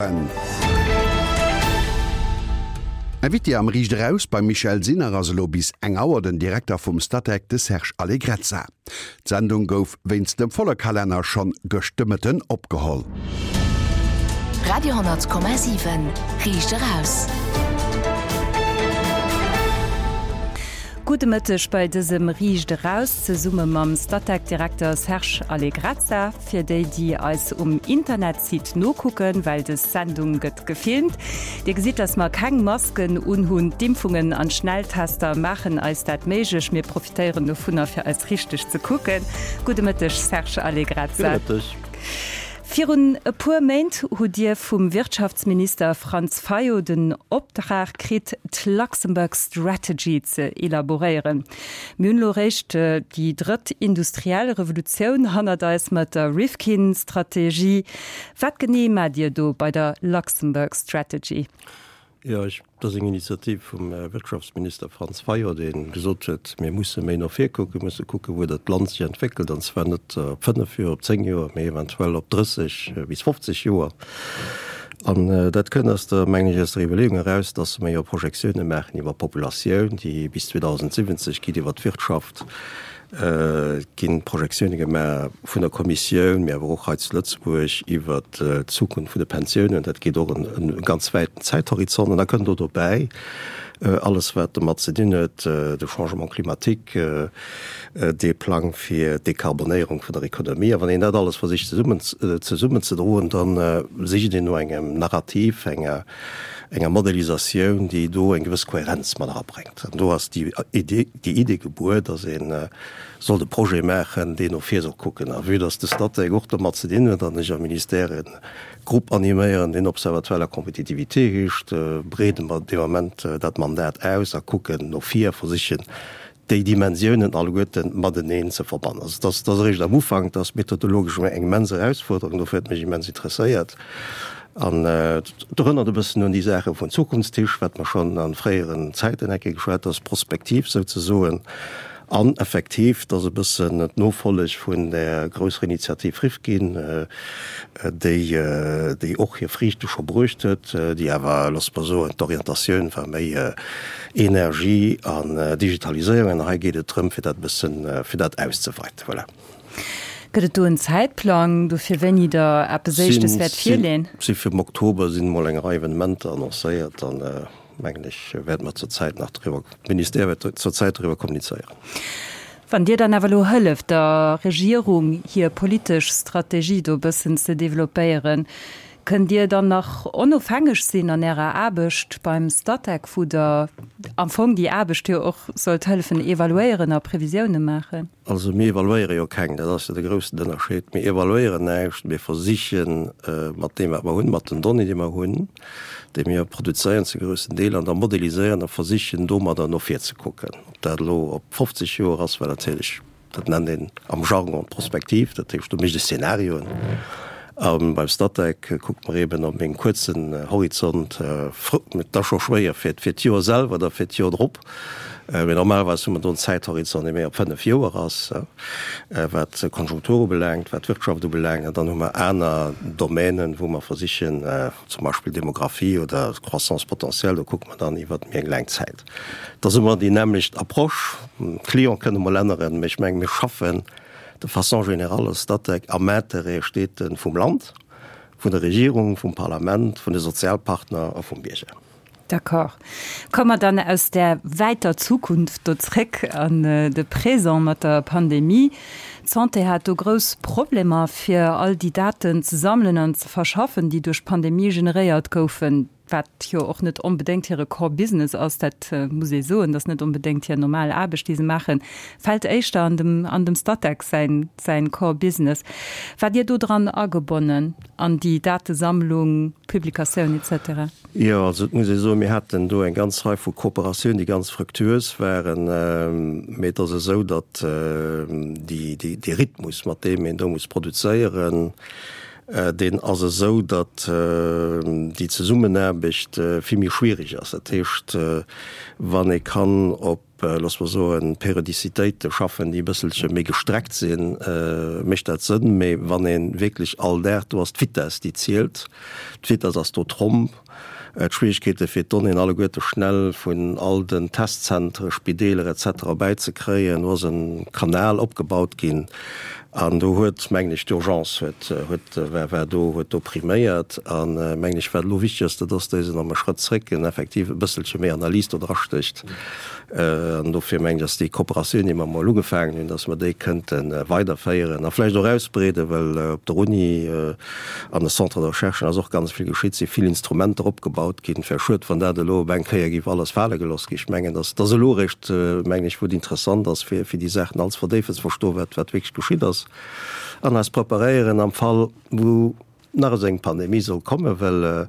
En Invité am Riicht Eraus beim Michèle Sinner ass elo bis eng Auer den Direkter vum Statec, de Serge Allegrezza. D'Sendung gouf wéinst dem volle Kalenner schonn gëscht de Mëtten opgeholl. Radio 10,7 Riicht Eraus. Gudde Mëtteg bei dësem Riicht Eraus zesumme mam Statec-Direkter Serge Allegrezza. Fir déi, déi eis um Internetsite nokucken, well des Sendung gëtt gefilmt, Dir gesitt, dass mer keng Masken unhunn. D'Impfungen an d'Schnelltester maachen eis dat méiglech. Mir profitéieren dovunner, fir eis richteg ze kucken. Gudde Mëtteg, Serge Allegrezza. Gudde Mëtteg. Virun e puer Méint hutt Dir vum Wirtschaftsminister Franz Fayot den Optrag kritt, d'Luxembourg Strategy ze elaboréieren. Mir hunn elo eréischt déi drëtt industriell Revolutioun hannert eis mat der Rifkin-Strategie. Wat genee maacht Dir do bei der Luxembourg Strategy? Jo, ech, dat ass eng Initiativ vum Wirtschaftsminister Franz Fayot, dee gesot huet, mir musse méi no vir kucken, musse kucken, wou dat Land sech entwéckelt, an zwar net op fënnef Joer, op zéng Joer, mee eventuell op 30 bis 50 Joer. An dat kënnt aus der, mengen ech, aus der Iwwerleeung eraus, dass mer jo Projektiounen maachen iwwer d'Populatioun, déi bis 2070 geet, iwwer d'Wirtschaft. Et gi Projektioune gemaach vun der Kommissioun, mee awer och hei zu Lëtzebuerg iwwert d'Zukunft vun de Pensiounen. Dat geet och en ganz wäiten Zäithorizont. An da kënnt do dobäi alles, wat domat ze dinn huet, de Changement climatique, dee Plang fir d'Dekarbonéierung vun der Ekonomie. A wann een dat alles versicht zesummen zesummenzedroen, da sicht een no engem Narrativ, enger enger Modellisatioun, déi do eng gewëss Kohärenz mat erabréngt. An do ass déi Idee, déi Idee gebuer, dass ee sollt e Projet maachen, deen no vir soll kucken. A vue dass de Statec och domat ze dinn huet an ech am Ministère e Grupp animéieren, deen Observatoire de la compétitivité heescht, breede mer dee Moment dat Mandat aus a kucken no vir a versichen, déi Dimensiounen alleguerte mateneen ze verbannen. Also dat ass eréischt am Ufank, dat ass methodologesch eng immens Erausfuerderung, dofir huet mech immens interesséiert. An et erënnert e bëssen un déi Saache vun Zukunftstisch, wat mer schonn a fréieren Zäiten eng Kéier geschwat, dat ass prospektiv souzesoen. An effektiv, dat ass e bëssen d'Nofolleg vun där grousser Initiativ Rifkin, déi, déi och hir Friichte scho bruecht huet, déi awer, loosse mer soen, d'Orientatioun war méi Energie an Digitaliséierung. An hei geet et drëm, fir dat e bëssen, fir dat auszeweiten. Voilà. Gëtt et do en Zäitplang dofir, wéini Der eppes Éischtes wäert virleeën? Si fir am Oktober sinn emol eng Rei Evenementer annoncéiert an, mengen ech, wäerte mer zur Zäit nach driwwer, d'Ministère wäert zur Zäit driwwer kommunizéieren. Wann Dir dann awer elo hëlleft, der Regierung hir politesch Strategie do e bëssen ze developpéieren, kënnt Dir dann nach onofhängeg sinn an Ärer Aarbecht beim Statec, wou Der am Fong déi Aarbecht jo och sollt hëllefen evaluéieren a Previsioune maachen? Also mir evaluéiere jo keng, dat ass jo de groussen Ënnerscheed. Mir evaluéieren näischt, mir versiche mat deem wat mer hunn, mat den Donnéeën déi mer hunn, déi mir produzéieren zu groussen Deel an da modeliséieren a versichen domadder no vir ze kucken. Ob dat elo op 50 Joer ass, well natierlech, dat nennt een am Jargon d'Prospektiv, dat heescht do mécht ee Szenarioen. A beim Statec kucke mer eeben op engem kuerzen Horizont, et ass scho schwéier fir d'Joer selwer oder fir d'Joer drop, mee normalerweis hu mer do en Zäithorizont, dee méi op 5 Joer ass, wat d'Konjunktur ubelaangt, wat d'Wirtschaft ubelaangt. An dann hu mer aner Domänen, wou mer versichen, zum Beispill Demographie oder Croissance potentielle, do kucke mer dann iwwert méi eng laang Zäit. Et ass ëmmer déi nämmlecht Approche. D'Cliente kënne mol änneren, mee ech menge mir schaffen de façon générale als Statec am Intérêt steet e vum Land, vun der Regierung, vum Parlament, vun de Sozialpartner a vum Bierger. D'accord. Komme mer dann aus där wäiter Zukunft do zréck an de Présent mat der Pandemie. D'Santé hat do grouss Problemer, fir all déi Daten ze sammelen an ze verschaffen, déi duerch d'Pandemie generéiert goufen. Wat jo och net onbedéngt hire Core Business ass, dat muss ee soen, dat ass net onbedéngt hir normal Aarbecht, déi se maachen, fält éischter an dem, an dem Statec säin, säin Core Business. Waart Dir do dran agebonnen an déi Datesammlung, Publikatioun et cetera? Jo, also et muss ee soen, mir haten do eng ganz Rei vu Kooperatiounen, déi ganz fructuös waren. Mee et ass esou, datt déi, déi, dee Rhythmus, mat deem een do muss produzéieren, Deen ass esou, datt déi Zesummenaarbecht vill méi schwierig ass. Dat heescht, wann ee kann op. loosse mer soen, Periodicitéite schaffen, déi e bësselche méi gestreckt sinn, mécht dat Sënn. Mee wann ee wierklech all Dag, do ass d'Vitess, déi zielt, d'Vitess ass do Tromp. D'Schwierigkeete fir d'Donnéeën alleguerte schnell vun all den Testzentere, Spideeler et cetera bäizekréien. Do ass e Kanal opgebaut ginn an do huet, mengen ech, d'Urgence huet, huet, war, war do, huet do priméiert. An, mengen ech, wat elo wichteg ass, dat ass, datt een am e Schrëtt zréck en effektiv e bësselche méi Analys do drastécht. An dofir mengen ech, ass déi Kooperatioun, déi mer emol ugefaangen hunn, dass mer déi kënnte weiderféieren a vläicht och ausbreeden, well op der Uni an de Centres de recherche ass och ganz vill geschitt, si vill Instrumenter opgebaut ginn. Et wär schued, wann dat elo op eng Kéier géif alles fale gelooss ginn. Ech mengen, dass dass elo eréischt, mengen ech, wou et interessant ass, fir fir déi Saachen all ze verdéifen, ze verstoen, wat wat wierklech geschitt ass an eis preparéieren am Fall, wou nach esou eng Pandemie soll kommen, well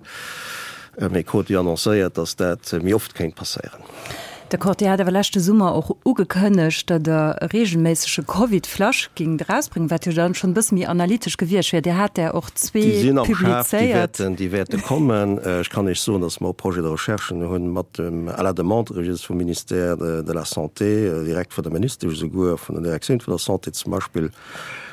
mir krute jo annoncéiert, datt dat méi oft kéint passéieren. D'accord. Dir hat awer leschte Summer och ugekënnegt, datt Der e reegelméissege Covid-Flash géingt erausbréngen, wat jo dann schonn e bësse méi analytesch gewiescht wier. Dir hat där och zwee Déi sinn am Schaf, déi publizéiert. wäerten, déi wäerte kommen. Ech kann Iech soen, datt mer och Projets de recherchen hunn mat dem, à la demande religieuse vum Ministère de la Santé, direkt vun der Ministesch esouguer, vun der Direktioun vun der Santé zum Beispill,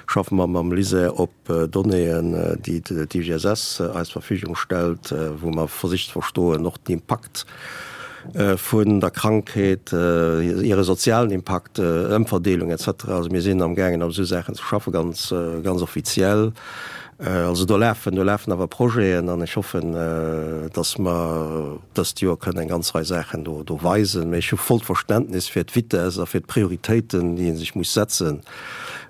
schaffe mer mam LISER op Donnéeën, déi d'IGSS eis Verfügung stellt, wou mer versicht ze verstoen, och den Impakt vun der Krankheet, hire sozialen Impakt, Ëmverdeelung et cetera. Also mir sinn amgaangen op esou Saachen ze schaffen, ganz, ganz offiziell. Also do lafen, do lafen awer Projeten an ech hoffen, datt mer dëst Joer kënnen eng ganz Rei Saachen do, do weisen. Mee ech hu vollt Verständnis fir d'Vitesse a fir d'Prioritéiten, déi ee sech muss setzen.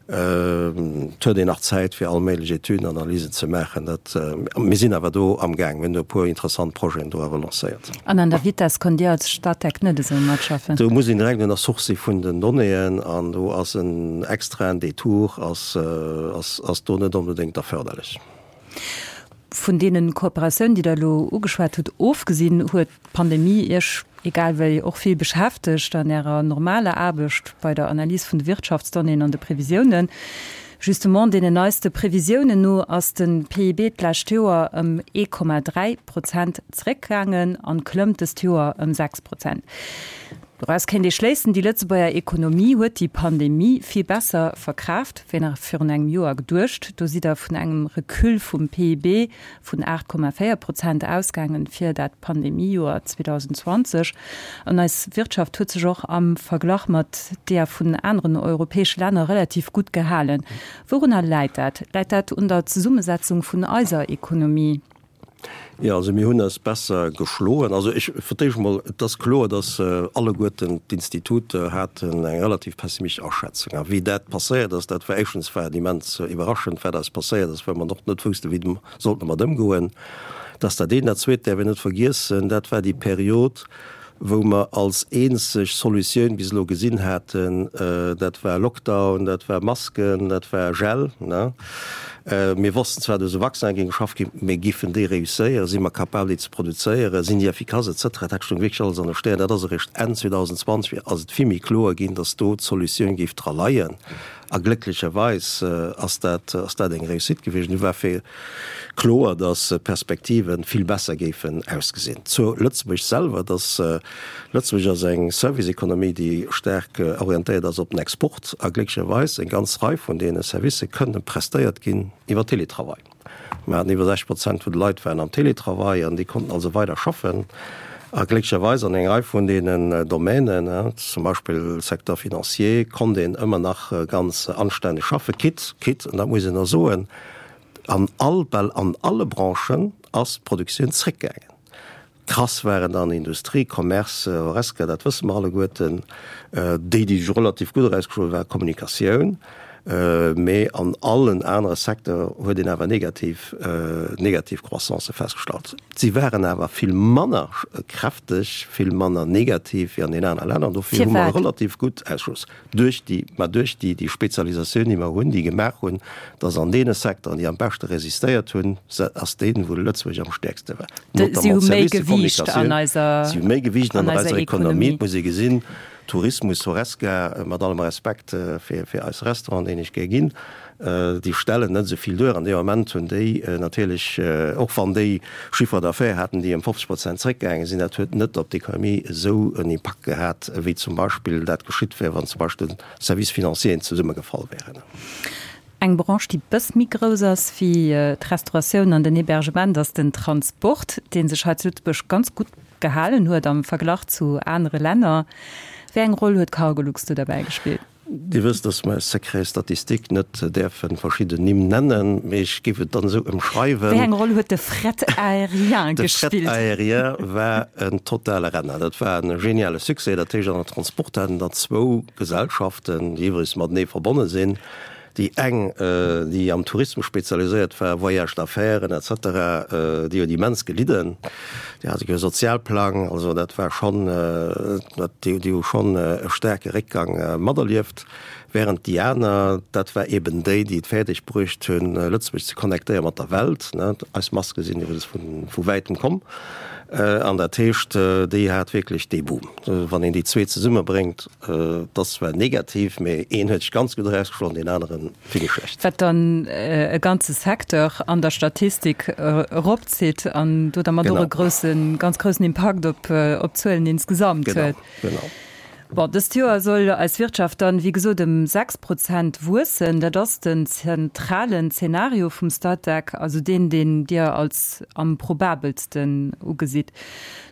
Et huet een nach Zäit fir all méiglech Etüden, Analysen ze maachen. Dat, mir sinn awer do amgaang. Mir hunn do e puer interessant Projeten do awer lancéiert. An an der Vitess konnt Dir als Statec net esou matschaffen? Do muss een direkt un der Source si vun den Donnéeën an do ass en extraen Detour ass, ass, ass do net onbedéngt erförderlech. Vun deene Kooperatiounen, déi Der elo ugeschwat hutt, ofgesinn, huet d'Pandemie Iech egal wéi och vill beschäftegt an Ärer normaler Aarbecht bei der Analys vun de Wirtschaftsdonnéeën an de Previsiounen. Justement, deenen neiste Previsiounen no ass de PIB d'lescht Joer ëm 1,3 Prozent zeréckgaangen an klëmmt dëst Joer ëm 6 Prozent. Doraus kéint ee schléissen, déi Lëtzebuerger Ekonomie huet déi Pandemie vill besser verkraaft, wéi nach virun engem Joer geduecht. Do sidd Der vun engem Recul vum PIB vun 8,4 Prozent ausgaangen fir dat Pandemiejoer 2020. An eis Wirtschaft huet sech och am Verglach mat deeër vun aneren europäesche Länner relativ gutt gehalen. Wourunner läit dat? Läit dat un der Zesummesetzung vun eiser Ekonomie? Jo, also mir hunn eis besser geschloen. Also ech, fir d'éischt emol, et ass kloer, datt alleguerten d'Instituter haten eng relativ pessimistesch Aschätzung. A wéi dat passéiert ass, dat war éischtens war et immens iwwerraschend, wat eis passéiert ass, well mer och net woussten, wéi mer sollten domat ëmgoen. Dat ass dat eent. Dat Zweet däerf een net vergiessen, dat war déi Period, wou mer als eenzeg Solutioun bis elo gesinn haten, dat war Lockdown, dat war Masken, dat war Gel. Mir wossten zwar, datt u Vaccinen géing geschafft ginn, mee giffen déi réusséieren, si mer capabel déi ze produzéieren, sinn déi effikass et cetera, dat stoung wierklech alles an de Stären. Dat ass eréischt Enn 2020 ass et vill méi kloer ginn, datt do d'Solutioun géif dra leien. A glécklecherweis ass dat, ass dat eng Réussite gewiescht. Du war fir kloer, datt d'Perspektive vill besser géifen ausgesinn. Zu Lëtzebuerg selwer, datt Lëtzebuerg ass eng Service-Economie, déi staark orientéiert ass op den Export. A glécklecherweis eng ganz Rei vun deene Servicë kënnen prestéiert ginn iwwer Teletravail. Mir haten iwwer 60 Prozent vun de Leit waren am Teletravail an déi konnten also weider schaffen. A glécklecherweis an enger Rei vun deenen Domänen, zum Beispill Secteur financier, konnt een ëmmer nach ganz anstänneg schaffen, quitte, quitte, an dat muss een och soen, an all, bal an alle Branchen ass d'Produktioun zréckgaangen. Krass waren dann Industrie, Commerce, Horesca, dat wësse mer alleguerten. Déi, déi sech relativ gutt erausgeschloen hunn, war Kommunikatioun. Mee an allen anere Secteur huet een awer negativ, negativ Croissancë festgestallt. Si waren awer vill manner kräfteg, vill manner negativ wéi an den anere Länner. Dofir hu mer relativ gutt ausgeschloss. Duerch déi, mä duerch déi, déi Spezialisatioun, déi mer hunn, déi gemaach hunn, dass an deene Secteuren, déi am beschte resistéiert hunn, se ass deen, wou Lëtzebuerg am stäerkste war. Si hu méi Gewiicht an eiser, Si hu méi Gewiicht an eiser Ekonomie. Et muss ee gesinn. Tourismus, Horesca, mat allem Respekt fir fir eis Restauranten, deen ech gär ginn, déi stellen net esou vill duer. An deem Ament hunn déi natierlech, och wann déi Chiffre d'affaires haten, déi ëm 50 Prozent zréckgaange sinn, dat huet net op d'Ekonomie esou en Impakt gehat, wéi zum Beispill dat geschitt wär, wann zum Beispill de Services financieren zesummegefall wären. Eng Branche, déi bëss méi grouss ass wéi d'Restauratioun an den Hébergement, ass den Transport, dee sech hei zu Lëtzebuerg ganz gutt gehalen huet am Verglach zu anere Länner. Wéi eng Roll huet Cargolux do derbäi gespillt? Dir wësst, dass mer aus Secret statistique net däerfe verschidden Nimm nennen, mee ech géif et dann esou ëmschreiwen. Wéi eng Roll huet de Fret aérien gespillt? De Fret aérien war en totale Renner. Dat war e geniale Succès. Dat heescht, an der Transport haten der zwou Gesellschaften, déi iwwregens matenee verbonne sinn, Déi eng, déi am Tourismus spezialiséiert war, Voyages d'affaires et cetera, déi huet immens gelidden. Déi hat e Sozialplang, also dat war schonn, déi hu schonn e staarke Réckgang materlieft. Während déi aner, dat war eben déi, déi et fäerdeg bruecht hunn, Lëtzebuerg ze connectéiere mat der Welt. Eis Maske sinn iwwregens vu wäitem komm. An dat heescht, déi hat wierklech dee Boom. Wann een déi zwee zesummebréngt, Et ass zwar negativ, mee een huet sech ganz gutt erausgeschloen, deen anere vill méi schlecht. Wat dann e ganze Secteur an der Statistik eropzitt an do dermat och e groussen, ganz groussen Impakt op d'Zuelen insgesamt huet. Genau, genau. Bon, dëst Joer soll eis Wirtschaft dann, wéi gesot, ëm 6 Prozent wuessen. Dat ass den zentralen Zenario vum Statec, also deen, deen Dir als am probabelsten ugesitt.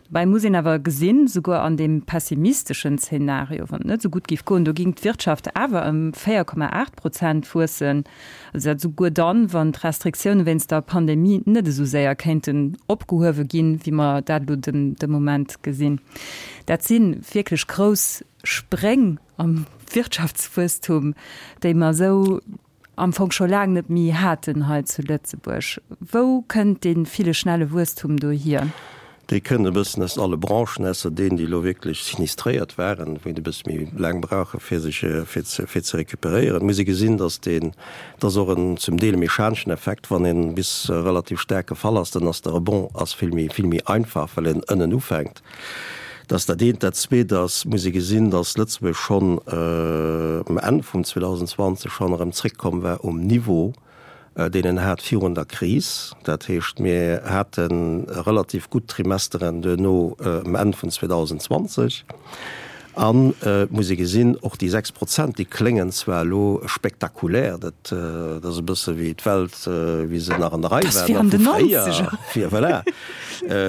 Dobäi muss een awer gesinn, souguer an deem pessimisteschen Zeenario, wann et net esou gutt géif goen, do géing d'Wirtschaft awer ëm 4,8 Prozent wuessen. Also dat souguer dann, wann d'Restriktioune wéinst der Pandemie net esou séier kéinten opgehuewe ginn, wéi mer dat elo de Moment gesinn. Dat si wierklech grouss Spréng am Wirtschaftswuesstum, déi mer esou am Fong scho laang net méi haten hei zu Lëtzebuerg. Wou kënnt dee ville schnelle Wuesstum do hier? Dee kënnt e bëssen aus alle Branchen, ausser deenen, déi elo wierklech sinistréiert waren, wou een e bësse méi laang brauche fir sech fir ze fir ze recuperéieren. Et muss ee gesinn, datt deen, et ass och en zum Deel e mechaneschen Effekt, wann een bis relativ staark gefall ass, dann ass de Rebond ass vill méi vill méi einfach, well een ënnen ufänkt. Dat ass dat eent. Dat zweet ass, muss ee gesinn, datt Lëtzebuerg schonn um Enn vum 2020 schonn erëm zréckkomm war um Niveau, deen en hat virun der Kris. Dat heescht, mir hate relativ gutt Trimesteren duerno um Enn vun 2020. An et muss ee gesinn, och déi 6 Prozent, déi kléngen zwar elo spektakulär, dat ass e bësse wéi d'Welt, wéi se nach an der Rei war, nach vu fréier, fir, voilà,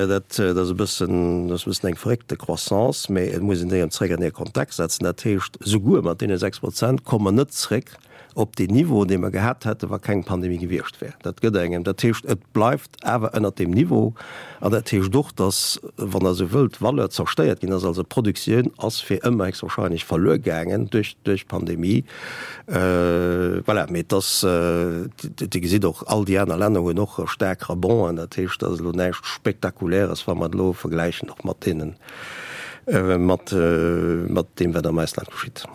dat ass e bëssen, dat ass e bëssen eng verréckte Croissance, mä et muss een déi erëm zréck an hir Kontext setzen. Dat heescht, souguer mat deene 6 Prozent komme mer net zréck op deen Niveau, dee mer gehat hätten, wa keng Pandemie gewiescht wär. Dat gëtt engem, dat heescht, et bleift awer ënnert deem Niveau. An dat heescht och, dass, wann Der esou wëllt, Valeur zerstéiert ginn ass, also d'Produktioun ass fir ëmmer héchstwahrscheinlech verluer gaangen duerch d'Pandemie. Voilà, mee et ass, Dir gesitt och, all déi aner Länner hunn och staark Rebond'en. Dat heescht, dat ass elo näischt Spektakuläres, wa mer et elo vergläichen och mat deenen, mat deem, wat am Ausland geschitt.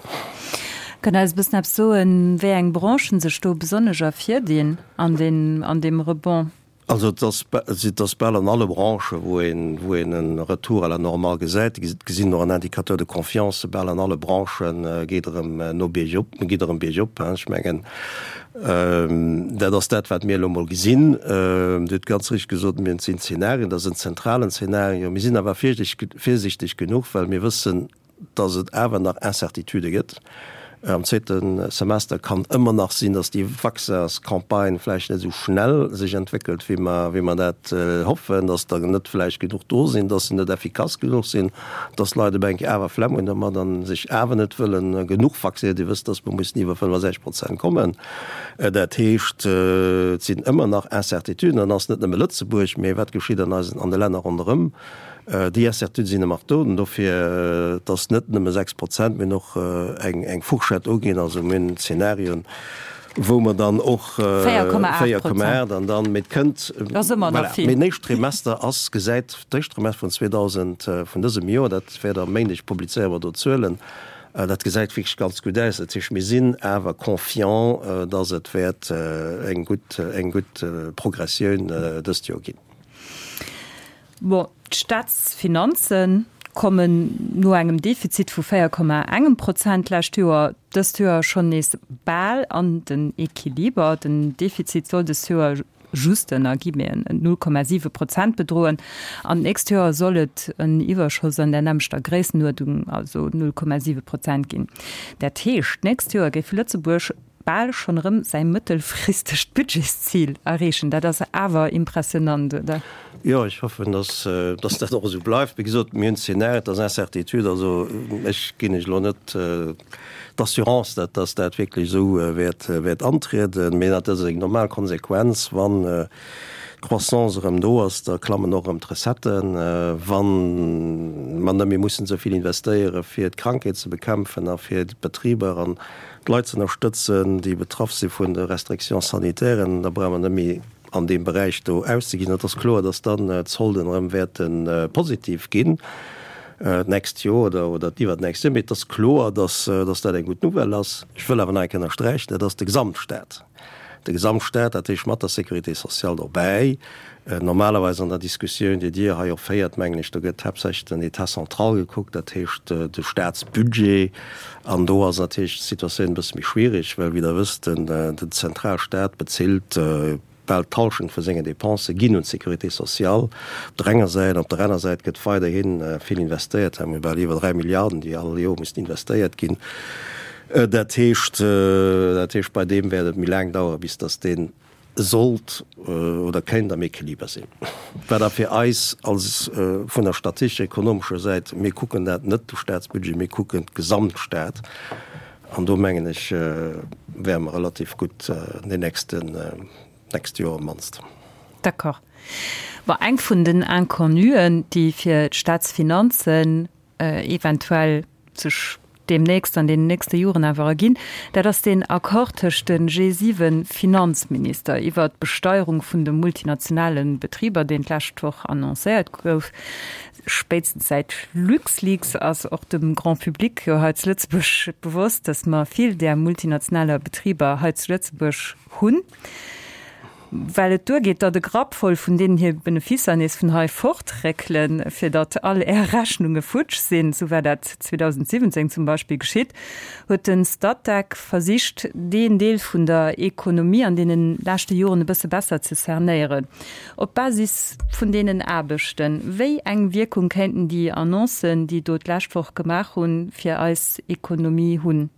Kënnt Der eis e bëssen eppes soen, wéi eng Branchen sech do besonnesch ervirdinn an deem Rebond? Also et ass, et ass bal an alle Branchen, wou een, wou een e Retour à la normale gesäit. Dir gesinn och an Indicateurs de confiance, bal an alle Branchen geet erëm no biergop, geet erëm biergop. Ech mengen, Dat ass dat, wat mir elo emol gesinn. Dir hutt ganz richteg gesot, mir sinn Zenarien, dat ass en zentralen Zenario. Mir sinn awer virsiichteg genuch, well mir wëssen, dass et awer nach Incertitudë gëtt. Am zweete Semester kann ëmmer nach sinn, dass déi Vaccinscampagne vläicht net esou schnell sech entwéckelt, wéi mer, wéi mer dat hoffen, dass der net vläicht genuch do sinn, dass se net effikass genuch sinn. dass d'Leit op eng Kéier awer Flemm hunn domat a sech awer net wëlle genuch vaccinéieren. Dir wësst, dass mer mussen iwwer 65 Prozent kommen. Dat heescht, et sinn ëmmer nach Incertituden. An ass net nëmme Lëtzebuerg, mee wat geschitt an eisen, an de Länner ronderëm. Déi Incertitude sinn ëmmer do. An dofir, et ass net nëmme 6 Prozent, mir hunn och eng, eng Fourchette uginn, also mir hunn Zenarien, wou mer dann och 4,8 an dann, mee et kënnt, voilà, mee den éischten Trimester ass, gesäit, d'éischt Trimester vun 2000, vun dësem Joer, dat wäert am Méindeg publizéiere mer do d'Zuelen, dat gesäit wierklech ganz gutt aus. Dat heescht, mir sinn awer confiant, dass et wäert eng gutt, eng gutt Progressioun dëst Joer ginn. Bon, d'Staatsfinanze. Kommen no engem Defizit vu 4 Komma engem Prozent d'lescht Joer dëst Joer schonn nees bal an den Equiliber. Den Defizit soll dëst Joer just ënner Guillemeten 0,7 Prozent bedroen an d'nächst Joer soll et en Iwwerschoss an der nämmlechter Gréissenuerdnung, also 0,7 Prozent ginn. Dat heescht, d'nächst Joer géif Lëtzebuerg bal schonn erëm säi mëttelfristegt Budgetszil erreechen. Dat ass awer impressionant, oder? Jo, ech hoffen, dass, dass dat och esou bleift. Wéi gesot, mir hunn Szenarien, et ass Incertitude. Also ech ginn lech elo net d'Assurance, dat, dass dat wierklech esou wäert, wäert antrieden. Mee dat ass eng normal Konsequenz, wann d'Croissance erëm do ass, da klammen och erëm d'Recetten. Wa mer net méi mussen esou vill investéiere fir d'Krankheet ze bekämpfen a fir d'Betriber an d'Leit ze ënnerstëtzen, déi betraff si vun de Restrictions sanitairen, da brauche mer net méi an deem Beräich do auszeginn. Et ass kloer, dass dann d'Solden erëm wäerte positiv ginn d'nächst Joer oder oder d'iwwernächst Joer. Mee et ass kloer, dass dass dat eng gutt Nouvelle ass. Ech wëll awer nach eng Kéier ënnersträichen, dat ass de Gesamtstaat. De Gesamtstaat, dat heescht mat der Sécurité sociale dobäi. Normalerweis an der Diskussioun, déi Dir hei och féiert, mengen ech, do gëtt haaptsächlech den État central gekuckt, dat heescht de Staatsbudget. An do ass natierlech d'Situatioun e bësse méi schwierig, well, wéi Der wësst, den Zentralstaat bezilt bal d'Hallschent vu sengen Dépensë ginn un d'Sécurité sociale op der enger Säit. Op der aner Säit gëtt weiderhi vill investéiert, mir hu bal iwwer 3 Milliarden, déi all Joer mussen investéiert ginn. Dat heescht, dat heescht, bei deem wäert et méi laang daueren, bis datt dee sollt oder kéint am Equiliber sinn. Wat da fir eis als vun der statistesch-ekonomescher Säit, mir kucken dat net de Staatsbudget, mir kucken d'Gesamtstaat, an do mengen ech, wäre mer relativ gutt an den nächsten, nächste Joer op d'mannst. D'accord. Bon, eng vun den Inconnuen, déi fir d'Staatsfinanzen eventuell sech deemnächst an deenen nächste Joren awer erginn, dat ass deen Accord tëscht de G7-Finanzminister iwwert d'Besteierung vun de multinationale Betriber, deen d'lescht Woch annoncéiert gouf. Spéitstens säit LuxLeaks ass och dem Grand public jo hei zu Lëtzebuerg bewosst, datt mer vill där multinationaler Betriber hei zu Lëtzebuerg hunn. Well et duergeet, datt e Grapp voll vun deenen hir Beneficer nees vun hei fortréckelen, fir datt all Är Rechnunge futsch sinn, sou war dat 2017 zum Beispill geschitt, huet de Statec versicht, deen Deel vun der Ekonomie an deene leschte Joren e bësse besser ze cernéieren. Op Basis vun deenen Aarbechten, wéi eng Wierkung kéinten déi Annoncen, déi do d'lescht Woch gemaach hunn, fir eis Ekonomie hunn?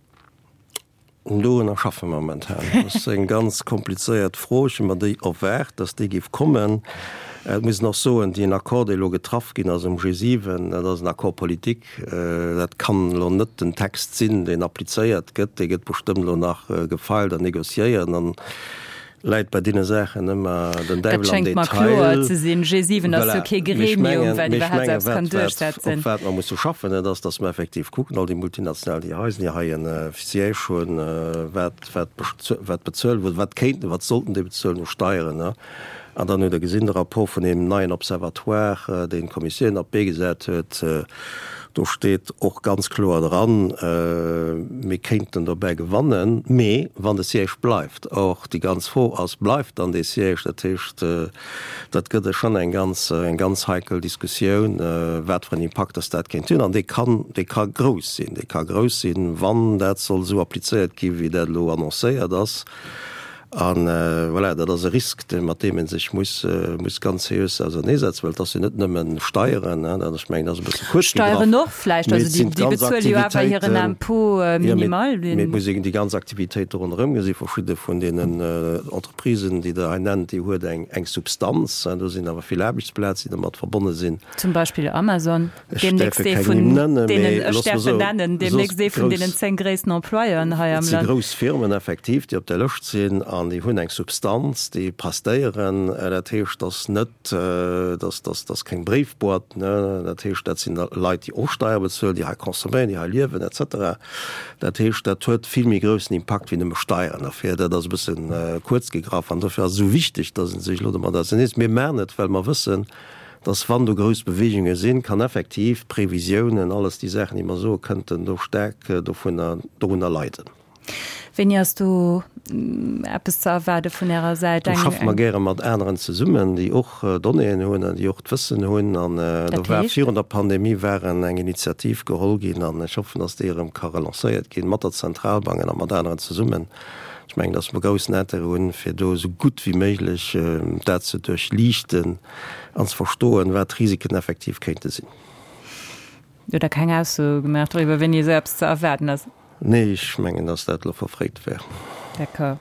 Dorunner schaffe mer momentan. Dat ass eng ganz komplizéiert Fro. Ech hu mer déi erwaart, datt déi géif kommen. Et muss een och soen, deen Accord, dee elo getraff ginn ass um G7, dat ass en Accord politique. Dat kann elo net den Text sinn, deen applizéiert gëtt. Dee gëtt bestëmmt elo nach gefeilt an négociéiert. An läit bei deene Saachen ëmmer den Däiwel am Detail. Dat schéngt mer kloer ze sinn. G7 ass jo kee Gremium, wat iwwerhaapt eppes kann duerchsetzen. Op wat mer musse schaffen, dat ass, datt mer effektiv kucken, all déi Multinationalen, déi hei sinn, déi hei e Siège hunn, wat, wat, wat bezuelen, wat kéinten, wat sollten déi bezuelen u Steieren. An dann hutt Der gesinn, de Rapport vun deem neien Observatoire, deen d'Kommissioun op d'Bee gesat huet, do steet och ganz kloer dran, mir kéinten dobäi gewannen, mee wann de Siège bleift. Or, déi ganz Fro ass, Bleift dann dee Siège? Dat heescht, dat gëtt schonn eng ganz, eng ganz heikel Diskussioun, wat fir en Impakt dass dat kéint hunn. An dee kann, dee ka grouss sinn. Dee ka grouss sinn, wann dat soll esou applizéiert gi wéi dat elo annoncéiert ass. A voilà, dat ass e Risk, dee mat deem ee sech muss, muss ganz seriös auserneesetzen, well et ass jo net nëmmen Steieren, hein, dat, ech mengen, dat ass e bësse kuerz gegraff. Steieren och vläicht, also déi, déi bezuele jo awer hiren Impôt minimal. Jo, mee et muss een déi ganz Aktivitéit do ronderëm gesinn. Verschidde vun deenen Entreprisen, déi Der hei nennt, déi huet eng, eng Substanz, hein, do sinn awer vill Aarbechtsplazen, déi domat verbonne sinn. Zum Beispill Amazon. Deemnächst ee vun deenen, ech däerf en nennen, deemnächst ee vun deenen 10 gréissten Employeuren hei am Land. Et si grouss Firmen effektiv, déi op där Lëscht sinn an déi hunn eng Substanz, déi prestéieren. Dat heescht, dass net, dass, dass, dass keng Bréifboîte, ne. Dat heescht, dat sinn Leit, déi och Steier bezuelen, déi hei consomméieren, déi hei liewen et cetera. Dat heescht, dat huet vill méi groussen Impakt wéi nëmme Steieren. Dofir, dat ass e bësse kuerz gegraff an dofir ass et esou wichteg, dass ee sech elo domat auserneesetzt. Mir maachen et, well mer wëssen, dass wann do grouss Beweegunge sinn, kann effektiv d'Previsiounen, alles déi Saachen, déi mer soen, kënnten do staark dovunner, dorunner leiden. Wéini ass do eppes ze erwaarde vun Ärer Säit? Do schaffe mer gäre mat aneren zesummen, déi och Donnéeën hunn an déi och d'Wëssen hunn. An do war virun der Pandemie war eng Initiativ geholl ginn an ech hoffen, datt déi erëm ka relancéiert ginn, mat der Zentralbank a mat aneren zesummen. Ech mengen, datt mer groussen Intérêt hunn, fir do esou gutt wéi méiglech dat ze duerchliichten an ze verstoen, wat d'Risiken effektiv kéinte sinn. Hutt Der keng Ausso gemaach doriwwer, wéini esou eppes ze erwaarden ass? Nee, ech mengen, dass dat elo verfréit wär. D'accord.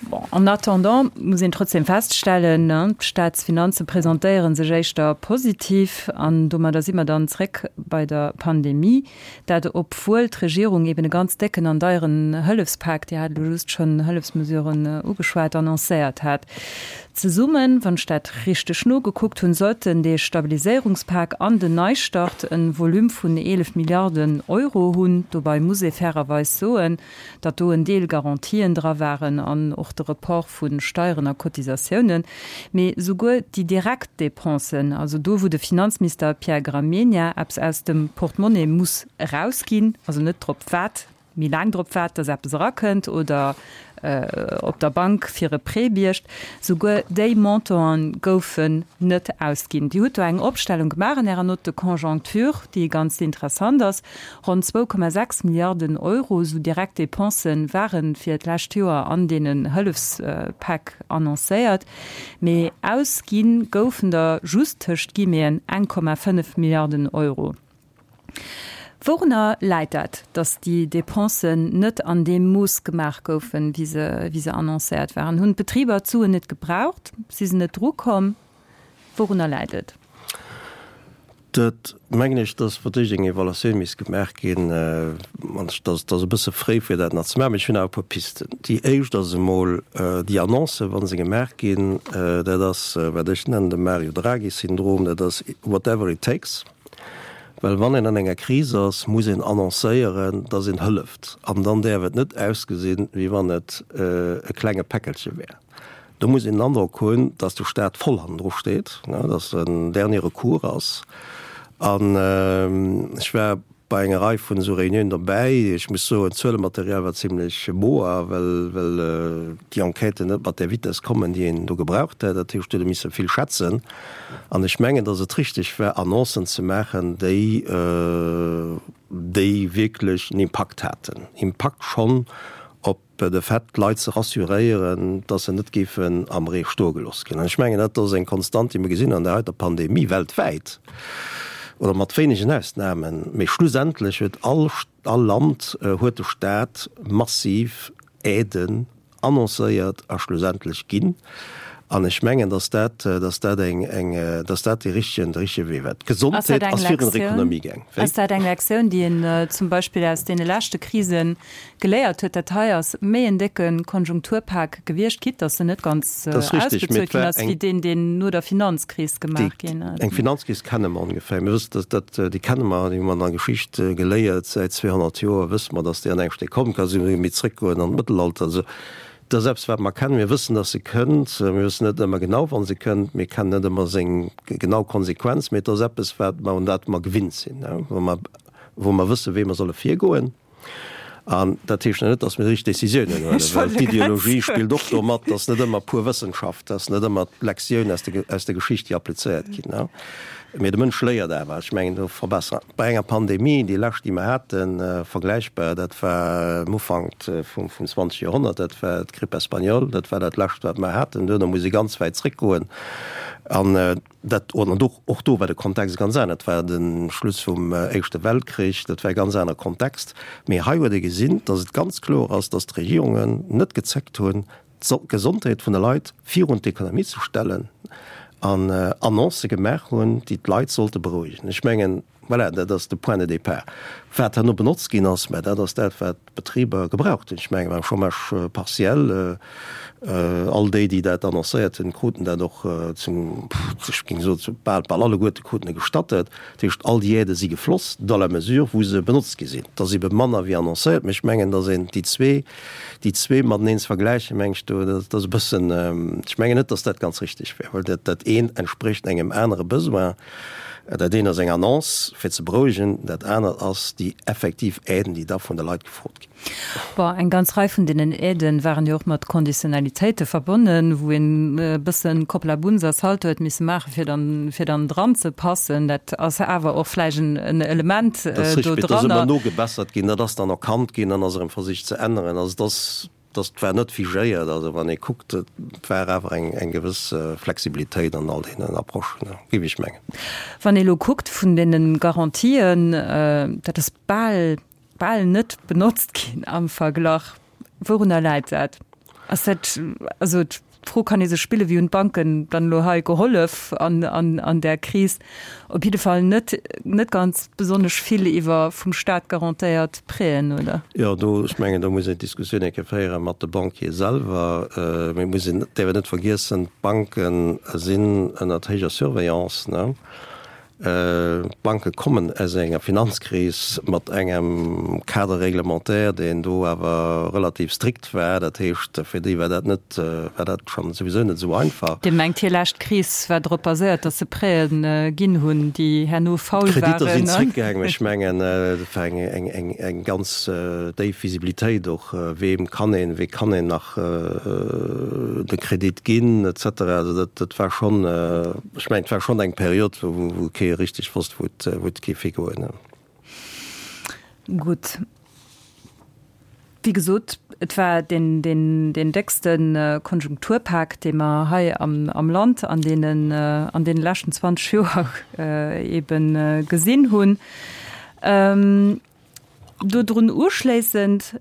Bon, en attendant muss een trotzdem feststellen, d'Staatsfinanze presentéiere sech éischter positiv. An domadder si mer dann zréck bei der Pandemie. Dat obwuel d'Regierung eben e ganz décken an deieren Hëllefspak, Dir hat elo just schonn Hëllefsmesuren ugeschwat, annoncéiert hat. Zesummen, wann ech dat richteg nogekuckt hunn, sollten dee Stabiliséierungspak an den Neistart e Volume vun 11 Milliarden Euro hunn. Dobei muss ee fairerweis soen, datt do en Deel Garantien dra waren an och de Report vu Steieren a Cotisatiounen. Mee souguer déi direkt Dépensen, also do wou de Finanzminister Pierre Gramegna eppes aus dem Portemonnaie muss erausginn, also net drop waart, méi laang drop waart, dass eppes erakënnt oder op der Bank fir e Prêt biergt, souguer déi Montanten goufen net ausginn. Dir hutt do eng Opstellung gemaach an Ärer Note de conjoncture, déi ganz interessant ass. Ronn 2,6 Milliarden Euro esou direkt Dépensen ware fir d'lescht Joer an deenen Hëllefspäck annoncéiert, mee ausgi goufen der just tëscht Guillemeten 1,5 Milliarden Euro. Wourunner läit dat, datt déi Dépensen net an deem Mooss gemaach goufen, wéi se, wéi se annoncéiert waren? Hunn d'Betriber d'Suen net gebraucht? Si se net drukomm? Wourunner läit et? Dat mengen ech, datt fir d'éischt eng Evaluatioun misst gemaach ginn. An et ass e bësse fréi, fir dat nach ze maachen, mee ech hunn awer e puer Pisten. Déi éischt ass emol, déi Annoncen, wa se gemaach ginn, dat ass, wat ech nennen de Mario Draghi-Syndrom, dat ass whatever it takes. Well wann een an enger Kris ass, muss een annoncéieren, dass een hëlleft. An dann däerf et net ausgesinn, wéi wann et e klenge Päckelche wär. Do muss een den Androck hunn, dass de Staat voll hannendru steet, dass en dernier recours ass. An ech war bei enger Rei vun esou Reuniounen dobäi. Ech muss soen, d'Zuelematerial war zimlech moer, well well déi Enquêten net mat där Vitess kommen, déi een do gebraucht hätt. Dat heescht, do huet ee misse vill schätzen. An ech mengen, datt et richteg war, Annoncen ze maachen, déi déi wierklech en Impakt haten. Impakt schonn op de Fait, d'Leit ze rassuréieren, dass se net géifen am Ree stoe gelooss ginn. An ech mengen, dat ass eng Konstant, déi mer gesinn an der heiter Pandemie weltwäit, oder mat wéinegen Ausnahmen, mee schlussendlech huet all, all Land, huet de Stat massiv Aiden annoncéiert a schlussendlech ginn. An ech mengen, dass dat, dass dat eng, eng, dass dat dee richtegen, de richtege Wee war. D'Gesondheet ass virun der Ekonomie gaang. Wéi? Ass dat eng Lektioun, déi een zum Beispill aus deene leschte Krisen geléiert huet, dat hei ass méi en décke Konjunkturpak gewiescht, quitte datt en net ganz ausbezuelt ginn ass, wéi deen, deen no der Finanzkris gemaach ginn ass. Eng Finanzkris kenne mer ongeféier. Mir wëssen, datt dat, déi kenne mer, déi hu mer an der Geschicht geléiert, säit 200 Joer wësse mer, datt déi an engem Stéck kommen kann. Si méi zréckgoen an d'Mëttelalter. Also, dat ass eppes, wat mer kennen. Mir wëssen, datt se kënnt. Mir wëssen net ëmmer genau, wann se kënnt. Mir kennen net ëmmer seng genau Konsequenz, mee et ass eppes, wat mer, un dat mer gewinnt sinn, wou mer, wou mer wëssen, wéi mer solle virgoen. An dat heescht net, datt mir déi richteg Décisiounen huelen, well d'Ideologie spillt och do mat, datt net ëmmer pur Wëssenschaft, datt net ëmmer d'Lektioun aus der, aus der Geschicht, déi applizéiert ginn. Mee de Mënsch léiert awer. Ech mengen, do verbessern. Bei enger Pandemie, déi lescht, déi mer haten, vergläichbar, dat war am Ufank vum, vum 20. Joerhonnert, dat war d'Grippe espagnole, dat war dat lescht, wat mer haten. Duerno muss ee ganz wäit zréckgoen. An Dat, an och, och do war de Kontext e ganz aner, et war de Schluss vum Éischte Weltkrich, dat war e ganz aner Kontext. Mee hei huet ee gesinn, datt et ganz kloer ass, datt d'Regierungen net gezéckt hunn, d'Gesondheet vun de Leit virun d'Ekonomie ze stellen an Annoncë gemaach hunn, déi d'Leit sollte berouegen. Ech mengen, Voilà, dat ass de Point de départ. Wat herno benotzt ginn ass, mä dat ass dat, wat d'Betriber gebraucht hunn. Ech mengen, beim Chômage partiel, all déi, déi dat annoncéiert hunn, kruten dat och zum, ech géing soen, zu bal, bal alleguerte kruten e gestattet. Dat heescht, all déi Aidë si gefloss dans la mesure, wou se benotzt gi sinn. Et ass ebe manner wéi annoncéiert, mä ech mengen, datt een déi zwee, déi zwee mateneen ze vergläichen, meng ech, do, dat ass e bëssen, ech mengen net, datt dat ganz richtig wär, well dat, dat eent entsprécht engem anere Besoin. Dat eent ass eng Annonce fir ze berouegen, dat anert ass déi effektiv Aiden, déi da vun de Leit gefrot ginn. Bon, eng ganz Rei vun deenen Aiden waren jo och mat Conditionnalitéite verbonnen, wou een e bëssen Kopplabunz a Salto huet misse maachen, fir dann, fir dann dran ze passen. Dat ass awer och vläicht en, en Element do dranner. Dat ass richtig, dat ass ëmmer nogebessert ginn, dat ass dann erkannt ginn, dann ass erëm versicht ze änneren. Also et ass. Dass war net figéiert. Also wann ee kuckt, et war awer eng eng gewëss Flexibilitéit an all deenen Approchen, géif ech mengen. Wann ee elo kuckt vun deene Garantien, dat ass bal bal net benotzt ginn am Verglach. Wourunner läit dat? Ass dat, also D'Fro kann ee sech spillen, Wéi hunn d'Banken dann elo hei gehollef an, an, an där Kris? Op jidde Fall net, net ganz besonnesch vill iwwer vum Staat garantéiert Prêten, oder? Jo, do, ech mengen, do muss een d'Diskussioun eng Kéier féiere mat de Banquiere selwer. Mee et muss een, däerf een net vergiessen, d'Banke sinn ënnert héijer Surveillance, ne? D'Banke kommen aus enger Finanzkris mat engem Cadre réglementaire, deen do awer relativ strikt war. Dat heescht, fir déi war dat net, war dat schonn souwisou net esou einfach. Dir mengt, hir lescht Kris war drop baséiert, datt se Prêten ginn hunn, déi herno faul waren? D'Kreditter sinn zréckgaangen. Ech mengen, et war eng ganz déif Visibilitéit och, weem kann een, wee kann een nach de Kredit ginn et cetera. Also dat war schonn. Ech mengen, et war schonn eng Period, wou kee richteg wosst, wou et géif higoen. Gutt. Wéi gesot, et war deen déckste Konjunkturpak, dee mer hei am Land an deene leschten 20 Joer eebe gesinn hunn. Dodrun uschléissend,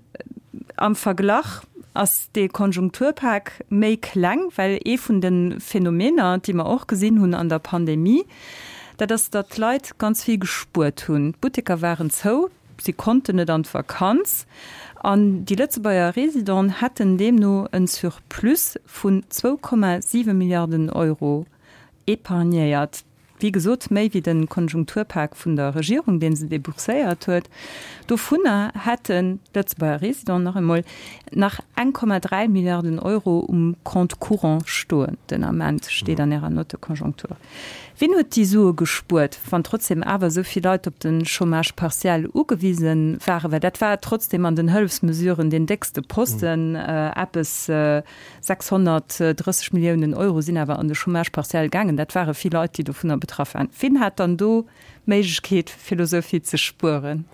am Verglach ass dee Konjunkturpak méi kleng, well ee vun de Phänomener, déi mer och gesinn hunn an der Pandemie, dat ass, datt d'Leit ganz vill gespuert hunn. D'Butteker waren zou, si konnten net an d'Vakanz an déi Lëtzebuerger Residenten hätten deemno en Surplus vun 2,7 Milliarden Euro épargnéiert. Wéi gesot, méi wéi de Konjunkturpak vun der Regierung, dee se debourséiert huet. Dovunner hätten d'Lëtzebuerger Residenten nach emol nach 1,3 Milliarden Euro um Compte courant stoen den Ament, steet an Ärer Note de conjoncture. Wien huet déi Sue gespuert, wann trotzdem awer esou vill Leit op de Chômage partiel ugewise waren? Well dat war trotzdem an den Hëllefsmesuren deen déckste Posten, eppes 630 Milliounen Euro sinn awer an de Chômage partiel gaangen. Dat ware vill Leit, déi dovunner betraff waren. Wien hat dann do d'Méiglechkeet, fir elo esou vill ze spueren?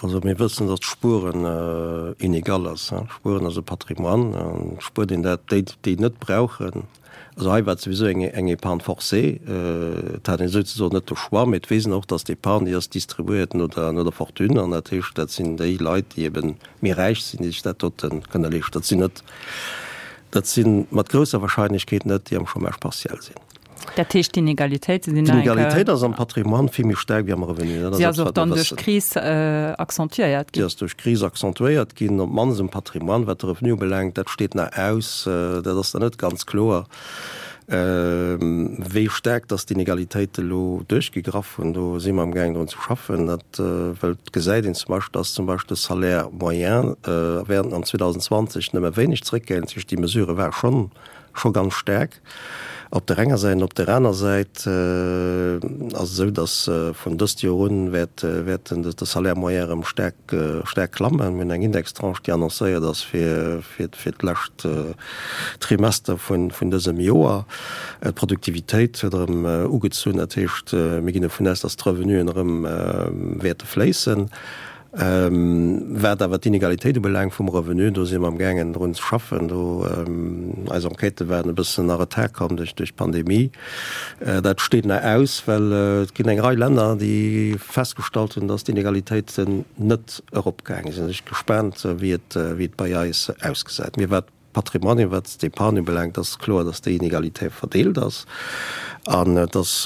Also mir wëssen, datt Spueren inegal ass. Spueren ass e Patrimoine an spuert een dat, déi, déi et net brauchen. Also hei war et souwisou eng, eng Épargne forcée. Et hat een souzesoen net de Choix, mee et weess een och, datt d'Épargne, déi ass distribuéiert no der, no der Fortune an dat heescht, dat sinn déi Leit, déi eben méi räich sinn, déi sech dat dote kënne leeschten. Dat sinn net, dat si mat grousser Wahrscheinlechkeet net déi am Chômage partiel sinn. Dat heescht, d'Inegalitéite sinn nach eng Kéier. D'Inegalitéit ass am Patrimoine vill méi staark wéi am Revenu. Dat ass Si ass och dann duerch d'Kris accentuéiert ginn. Déi ass duerch d'Kris accentuéiert ginn, op d'mannst um Patrimoine. Wat de Revenu ubelaangt, dat steet nach aus, dat ass nach net ganz kloer. Wéi staark dass d'Inegalitéite elo duerchgegraff hunn, do si mer amgaangen drun ze schaffen. Dat well et gesäit een zum Beispill, dass zum Beispill de Salaire moyen während an 2020 nëmme wéineg zeréckgaangen ass. Dat heescht, déi Mesure war schonn scho ganz staark op der enger Säit. An op der aner Säit ass et esou, dass vun dëst Joer un wäert wäert de Salaire moyen erëm staark staark klammen. Mir hunn eng Indextranche, déi annoncéiert ass fir fir d'lescht Trimester vun dësem Joer. D'Produktivitéit huet erëm ugezunn, dat heescht, mir ginn dovun aus, datt d'Revenuen erëm wäerte fléissen. Wat awer d'Inegalitéit ubelaangt vum Revenu, do si mer amgaangen drun ze schaffen. Do, eis Enquêtë waren e bëssen a Retard komm duerch d'Pandemie. Dat steet nach aus, well et ginn eng Rei Länner, déi festgestallt hunn, datt d'Inegalitéiten net eropgaangen sinn. Ech gespaant wéi et wéi et bei eis ausgesäit. Mee wat d'Patrimoine, wat d'Épargne ubelaangt, ass kloer, datt déi Inegalitéit verdeelt ass. An et ass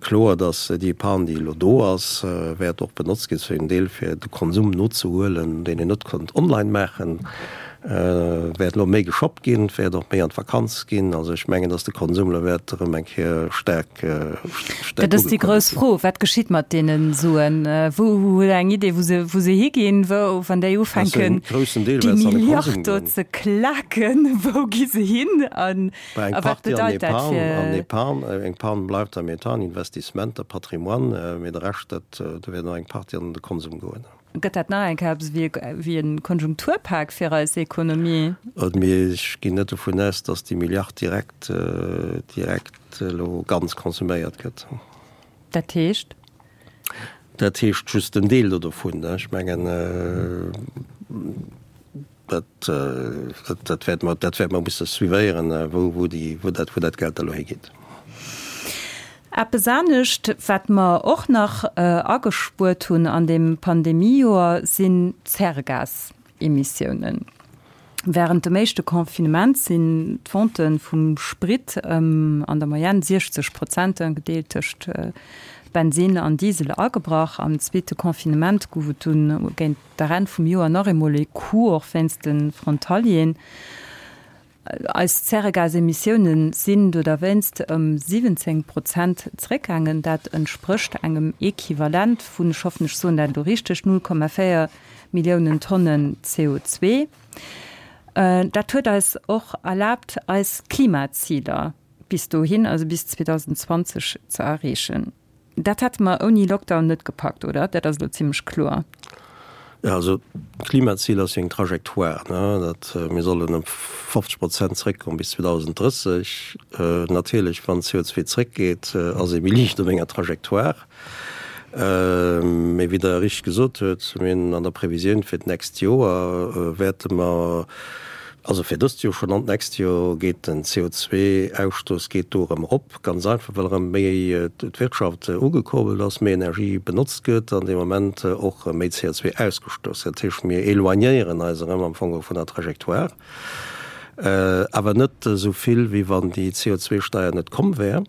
kloer, datt déi Épargne, déi elo do ass, wäert och benotzt ginn zu engem Deel fir de Konsum nozehuelen, deen een net konnt online maachen. Wäert elo méi geshoppt ginn, et wäert och méi an d'Vakanz ginn. Also ech mengen, datt de Konsum elo wäert erëm eng Kéier staark, staark Dat ass déi grouss Fro, Wat geschitt mat deene Suen? Wou, hutt Der eng Idee, wou se, wou se higinn, wou, wann déi ufänken, déi Milliard do ze klaken, wou gi se hin an a wat bedeit dat fir. Eng Partie an Epargne, eng Partie bleift am Etat, an Investissementer, Patrimoine, mee de Rescht, dat, do wäert och eng Partie an de Konsum goen. Gëtt dat nach eng Kéier eppes wéi e Konjunkturpak fir eis Ekonomie? Mee ech ginn net dovun aus, datt déi Milliard direkt, direkt elo ganz konsuméiert gëtt. Dat heescht? Dat heescht just en Deel do dovun. Ech mengen, dat, dat wäerte mer, dat wäerte mer musse suivéieren, wou, wou déi, wou dat, wou dat Geld da elo higeet. Eppes anescht, wat mer och nach agespuert hunn an deem Pandemiejoer, sinn d'Zäregasemissiounen. Wärend dem éischte Confinement sinn d'Vente vum Sprit ëm an der Moyenne 60 Prozent, gedeelt tëscht Bensinn an Diesel, agebrach. Am zweete Confinement gouf et dunn géint der Enn vum Joer nach eemol e Coup, och wéinst de Frontalieren. Eis Zäregasemissiounen sinn do derwéinst ëm 17 Prozent zeréckgaangen. Dat entsprécht engem Equivalent vun, ech hoffen, ech soen dat elo richteg, 0,4 Milliounen Tonnen CO2. Dat huet eis och erlaabt, eis Klimaziler bis dohin, also bis 2020, ze erreechen. Dat hätte mer ouni Lockdown net gepackt, oder? Dat ass elo zimlech kloer. Jo, also d'Klimazil ass jo eng Trajectoire, ne? Dat, mir sollen ëm 50 Prozent zréckkommen bis 2030. Natierlech, wann CO2 zréckgeet, ass ee méi liicht op enger Trajectoire. Mee wéi Der richteg gesot huet, mir hunn an der Previsioun fir d'nächst Joer wäerte mer, also fir dëst Joer schonn an d'nächst Joer geet den CO2-Ausstouss geet do erëm erop. Ganz einfach, well erëm méi d'Wirtschaft ugekurbelt ass, méi Energie benotzt gëtt an dee Moment och méi CO2 ausgestouss gëtt. Dat heescht, mir éloignéieren eis erëm am Fong vun der Trajectoire, awer net esou vill, wéi wann déi CO2-Steier net komm wär.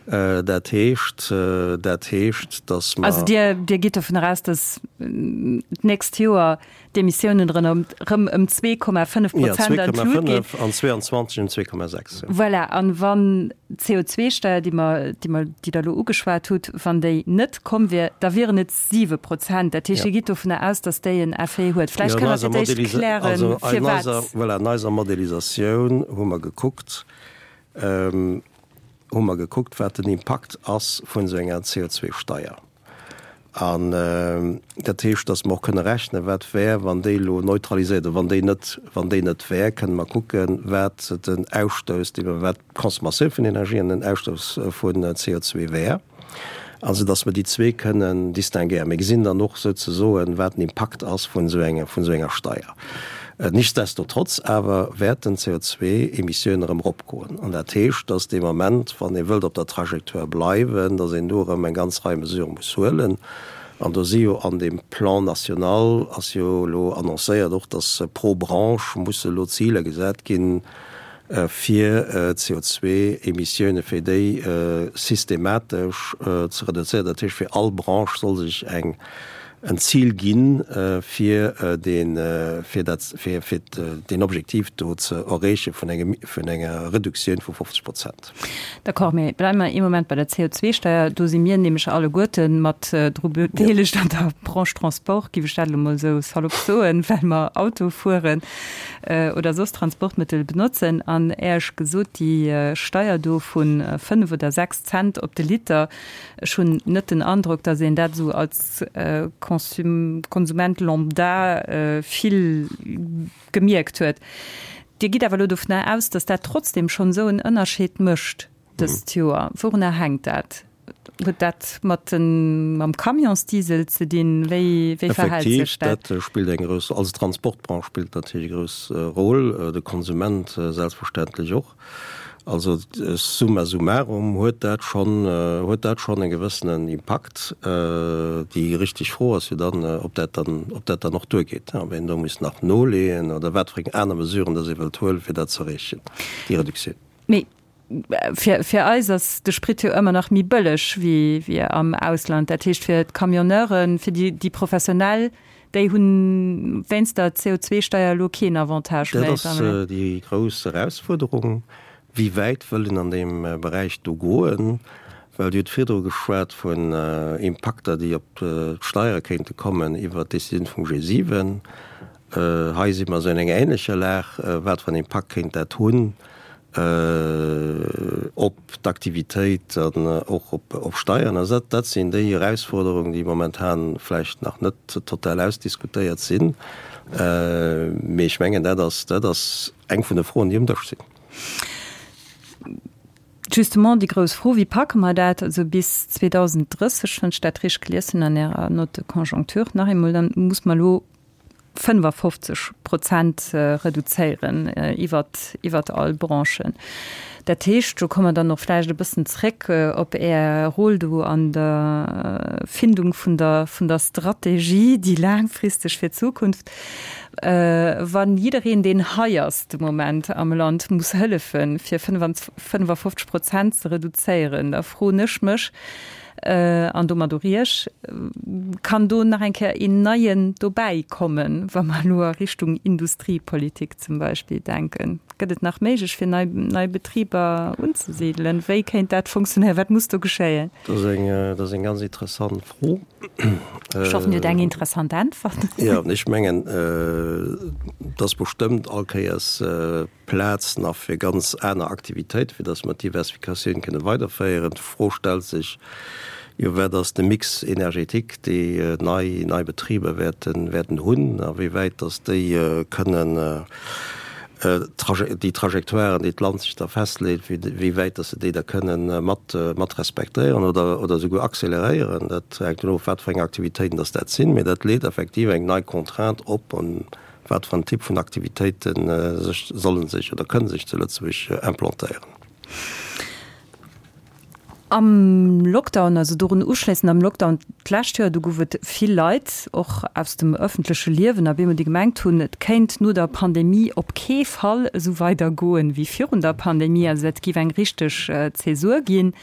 Dat heescht, dat heescht, datt mer. Also Dir, Dir gitt dovun eraus, datt d'nächst Joer d'Emissiounen erëm ëm 2,5 Prozent an d'Lut ginn. Ja, 2,5 an 22 ëm 2,6. Voilà, an wann d'CO2-Steier, déi mer, déi mer, déi Der elo ugeschwat hutt, wann déi net komm wier, da wieren et 7 Prozent. Dat heescht, Dir gitt dovunner aus, datt déi en Effet huet. Vläicht kënnt Der fir d'éischt klären, firwat. Voilà, an eiser Modellisatioun hu mer gekuckt, hu mer gekuckt, wat den Impakt ass vun esou enger CO2-Steier. An dat heescht, datt mer och kënne rechnen, wat wär, wann déi elo neutraliséiert oder wann déi net, wann déi net wär, kënne mer kucken, wat den Ausstouss, dee mer, wat d'Consommatioun vun Energie an den Ausstouss vun CO2 wär. Also datt mer déi zwee kënnen distinguéieren. Mir gesinn dann och souzesoen, wat den Impakt ass vun esou enger, vun esou enger Steier. Nichtsdestotrotz awer wäerten d'CO2-Emissiounen erëm eropgoen. An dat heescht, dass dee Moment, wann ee wëllt op der Trajectoire bleiwen, dass een do erëm eng ganz Rei Mesurë muss huelen. An do si jo an deem Plan national ass jo elo annoncéiert och, dass pro Branche musse elo Ziler gesat ginn, fir d'CO2-Emissioune fir déi systematesch ze reduzéieren. Dat heescht, fir all Branche soll sech eng en Zil ginn, fir deen, fir dat, fir, fir deen Objektiv do ze erreeche vun engem, vun enger Reduktioun vu 50 Prozent. D'accord, mee bleiwe mer ee Moment bei der CO2-Steier. Do si mir nämlech alleguerte mat dru bedeelegt an der Branche Transport, géif ech dat elo mol esou salopp soen, well mer Auto fueren oder soss Transportmëttel benotzen. An Äerch gesot, déi Steier do vu 5 oder 6 Cent op de Liter, Ech hunn net den Androck, datt een dat esou als Konsument lambda vill gemierkt huet. Dir gitt awer elo dovunner aus, datt dat trotzdem schonn esou en Ënnerscheed mécht dëst Joer. Wourunner hänkt dat? Huet dat mat den, mam Camionsdiesel ze dinn? Wéi, wéi verhält sech dat? Effektiv, dat spillt eng grouss, also d'Transportbranche spillt natierlech e grouss Rôle, de Konsument selbstverständlech och. Also summa summarum huet dat schonn, huet dat schonn e gewëssenen Impakt. Déi richteg Fro ass jo dann, ob dat dann, ob dat dann och duergeet, ob een do muss nach noleeën oder wat fir eng aner Mesuren dass ee wëllt huelen, fir dat ze erreechen, déi Reduktioun. Mee fir, fir eis ass de Sprit jo ëmmer nach méi bëlleg wéi, wéi am Ausland. Dat heescht fir d'Camionneuren, fir déi, déi Professionell. Déi hunn wéinst der CO2-Steier elo keen Avantage méi. Dat ass déi grouss Erausfuerderung. Wéi wäit wëll een an deem Beräich do goen? Well Dir hutt virdru geschwat vun Impakter, déi op d'Steiere kéinte kommen iwwert d'Decisioun vum G7. Hei si mer esou an enger ähnlecher Lag. Wat fir en Impakt kéint dat hunn op d'Aktivitéit an och op Steieren? Also dat sinn déi Erausforderungen, déi momentan vläicht nach net total ausdiskutéiert sinn. Mee ech mengen, dat ass, dat ass eng vun de Froen, déi um Dësch sinn. Justement déi grouss Fro, Wéi packe mer dat? Also bis 2030, wann ech dat richteg gelies hunn an Ärer Note de conjoncture, nach eemol, dann muss mer elo 55 Prozent reduzéieren iwwert, iwwert all Branchen. Dat heescht, do komme mer dann och vläicht e bëssen zréck op Är Rôle do an der Findung vun der, vun der Strategie, déi laangfristeg fir d'Zukunft. Wa jiddereen, deen hei ass de Moment am Land, muss hëllefen, fir 55 Prozent ze reduzéieren, da froen ech mech, An domat och Iech, Kann do nach eng Kéier een neien dobäi kommen, wa mer elo a Richtung Industriepolitik zum Beispill denken? Gëtt et nach méiglech, fir nei, nei Betriber unzesidelen? Wéi kéint dat funktionéieren? Wat muss do geschéien? Dat ass eng, dat ass eng ganz interessant Fro. Ech hoffen, Dir hutt eng interessant Äntwert. Jo, ech mengen, et ass bestëmmt all Kéiers Plaz nach fir ganz aner Aktivitéiten, fir datt mer d'Diversifikatioun kënne weiderféieren. D'Fro stellt sech jo, Wat ass de Mix énergétique, dee nei nei Betriber wäerten wäerten hunn, a wéi wäit datt déi kënnen déi Trajectoiren, déi d'Land sech da festleet, wéi wäit datt se déi da kënnen mat mat respektéieren oder oder esouguer accéléréieren. Dat hänkt dovun of, wat fir eng Aktivitéiten datt dat sinn. Mee dat leet effektiv eng nei Contrainte op. Wat fir en Typ vun Aktivitéite sech sollen sech oder kënne sech zu Lëtzebuerg implantéieren? Am Lockdown, also dorun uschléissend am Lockdown d'lescht Joer, do gouf et vill Leit, och aus dem ëffentleche Liewen, a bemol, déi gemengt hunn, et kéint no der Pandemie op kee Fall esou weider goen wéi virun der Pandemie. Also dat géif eng richteg Zäsur ginn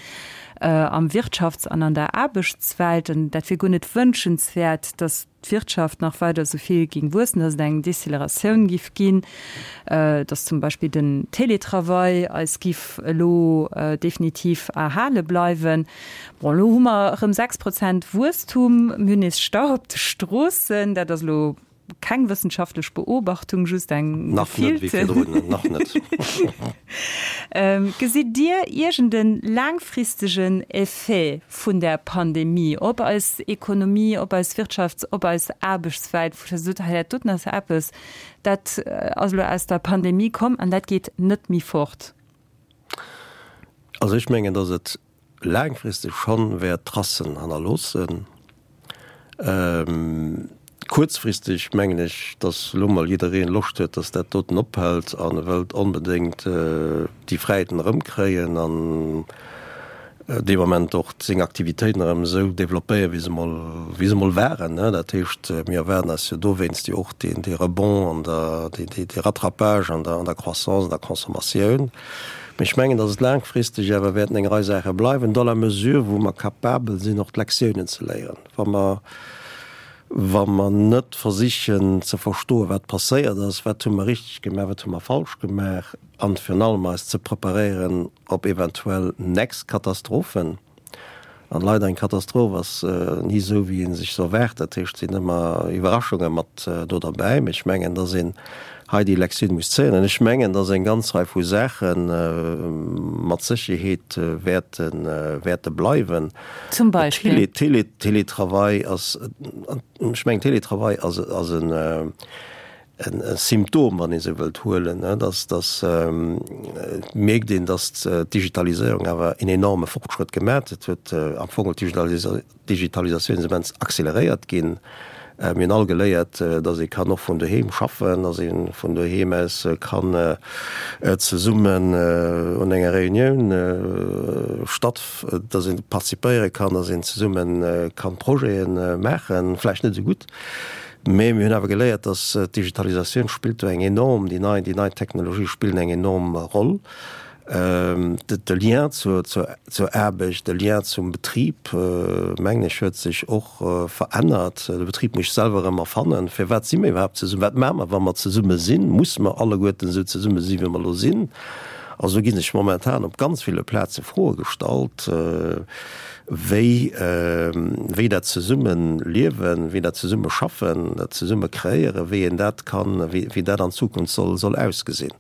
am Wirtschafts an an der Aarbechtswelt. An dat wier guer net wënschenswäert, datt d'Wirtschaft nach weider esou vill géing wuessen, dass et eng Deceleratioun giff ginn, dass zum Beispill den Télétravail eis giff elo definitiv erhale bleiwen. Bon, elo hu mer erëm 6 Prozent Wuesstum, mir hunn nees Stau op de Stroossen, dat ass elo keng wëssenschaftlech Beobachtung, just eng Nach net wéi gefillte. virdrun, nach net. Gesitt Dir iergend e laangfristegen Effet vun där Pandemie op eis Ekonomie, op eis Wirtschafts-, op eis Aarbechtswelt, wou Der sot, hei dat doten ass eppes, dat ass elo aus der Pandemie komm an dat geet net méi fort? Also ech mengen, datt et laangfristeg schonn wäert Tracen hannerloossen. Kuerzfristeg mengen ech, datt elo mol jiddereen Loscht huet, datt dat doten ophält an e wëllt onbedéngt déi Fräiheeten erëmkréien an dee Moment och seng Aktivitéiten erëm esou développéieren, wéi se mol, wéi se mol waren. Dat heescht, mir erwaarden eis jo dowéinst jo och deen, dee Rebond an der, dee, dee, dee Rattrapage an der, an der Croissance, an der Consommatioun. Mee ech mengen, datt et laangfristeg awer wäerten eng Rei Saache bleiwen, dans la mesure wou mer capabel sinn, och d'Lektiounen ze léieren. Wa mer, wa mer net versichen ze verstoen, wat passéiert ass, wat hu mer richteg gemaach, wat hu mer falsch gemaach, an virun allem eis ze preparéieren op eventuell nächst Katastrophen, An leider, eng Katastroph ass ni esou, wéi ee sech se erwaart. Dat heescht, et sinn ëmmer Iwwerraschunge mat do derbäi. Mee ech mengen, dass een hei déi Lektioun muss zéien. An ech mengen, dass eng ganz Rei vu Saache mat Sécherheet wäerte, wäerte bleiwen. Zum Beispill? Télé, Télétravail ass, ech mengen, Télétravail ass, ass en, e Symptom, wann ee sou wëllt, huelen, dass, dass et mierkt een, dass d'Digitaliséierung awer en enorme Fortschrëtt gemaach huet. Huet am Fong d'Digitalisatioun ass immens acceleréiert ginn. Mir hunn all geléiert, dass ee kann och vun doheem schaffen, dass ee vun doheem aus kann zesummen un enger Reunioun statt, dass ee participéiere kann, dass een zesumme kann Projete maachen, vläicht net esou gutt, Mee mir hunn awer geléiert, dass d'Digitalisatioun spillt do eng enorm, déi nei, déi nei Technologië spillen eng enorm Roll. De Lien zur Aarbecht, de Lien zum Betrib, mengen ech, huet sech och verännert. De Betrib muss sech selwer erëm erfannen. Firwat si mir iwwerhaapt zesummen? Wat maache mer, wa mer zesumme sinn? Musse mer alleguerten esou zesumme sinn, wéi mer elo sinn? Also do gi sech momentan op ganz ville Plaze Froe gestallt, wéi, wéi dat Zesummeliewen, wéi dat Zesummeschaffen, dat Zesummekréieren, wéi een dat kann, wéi dat an Zukunft soll ausgesinn.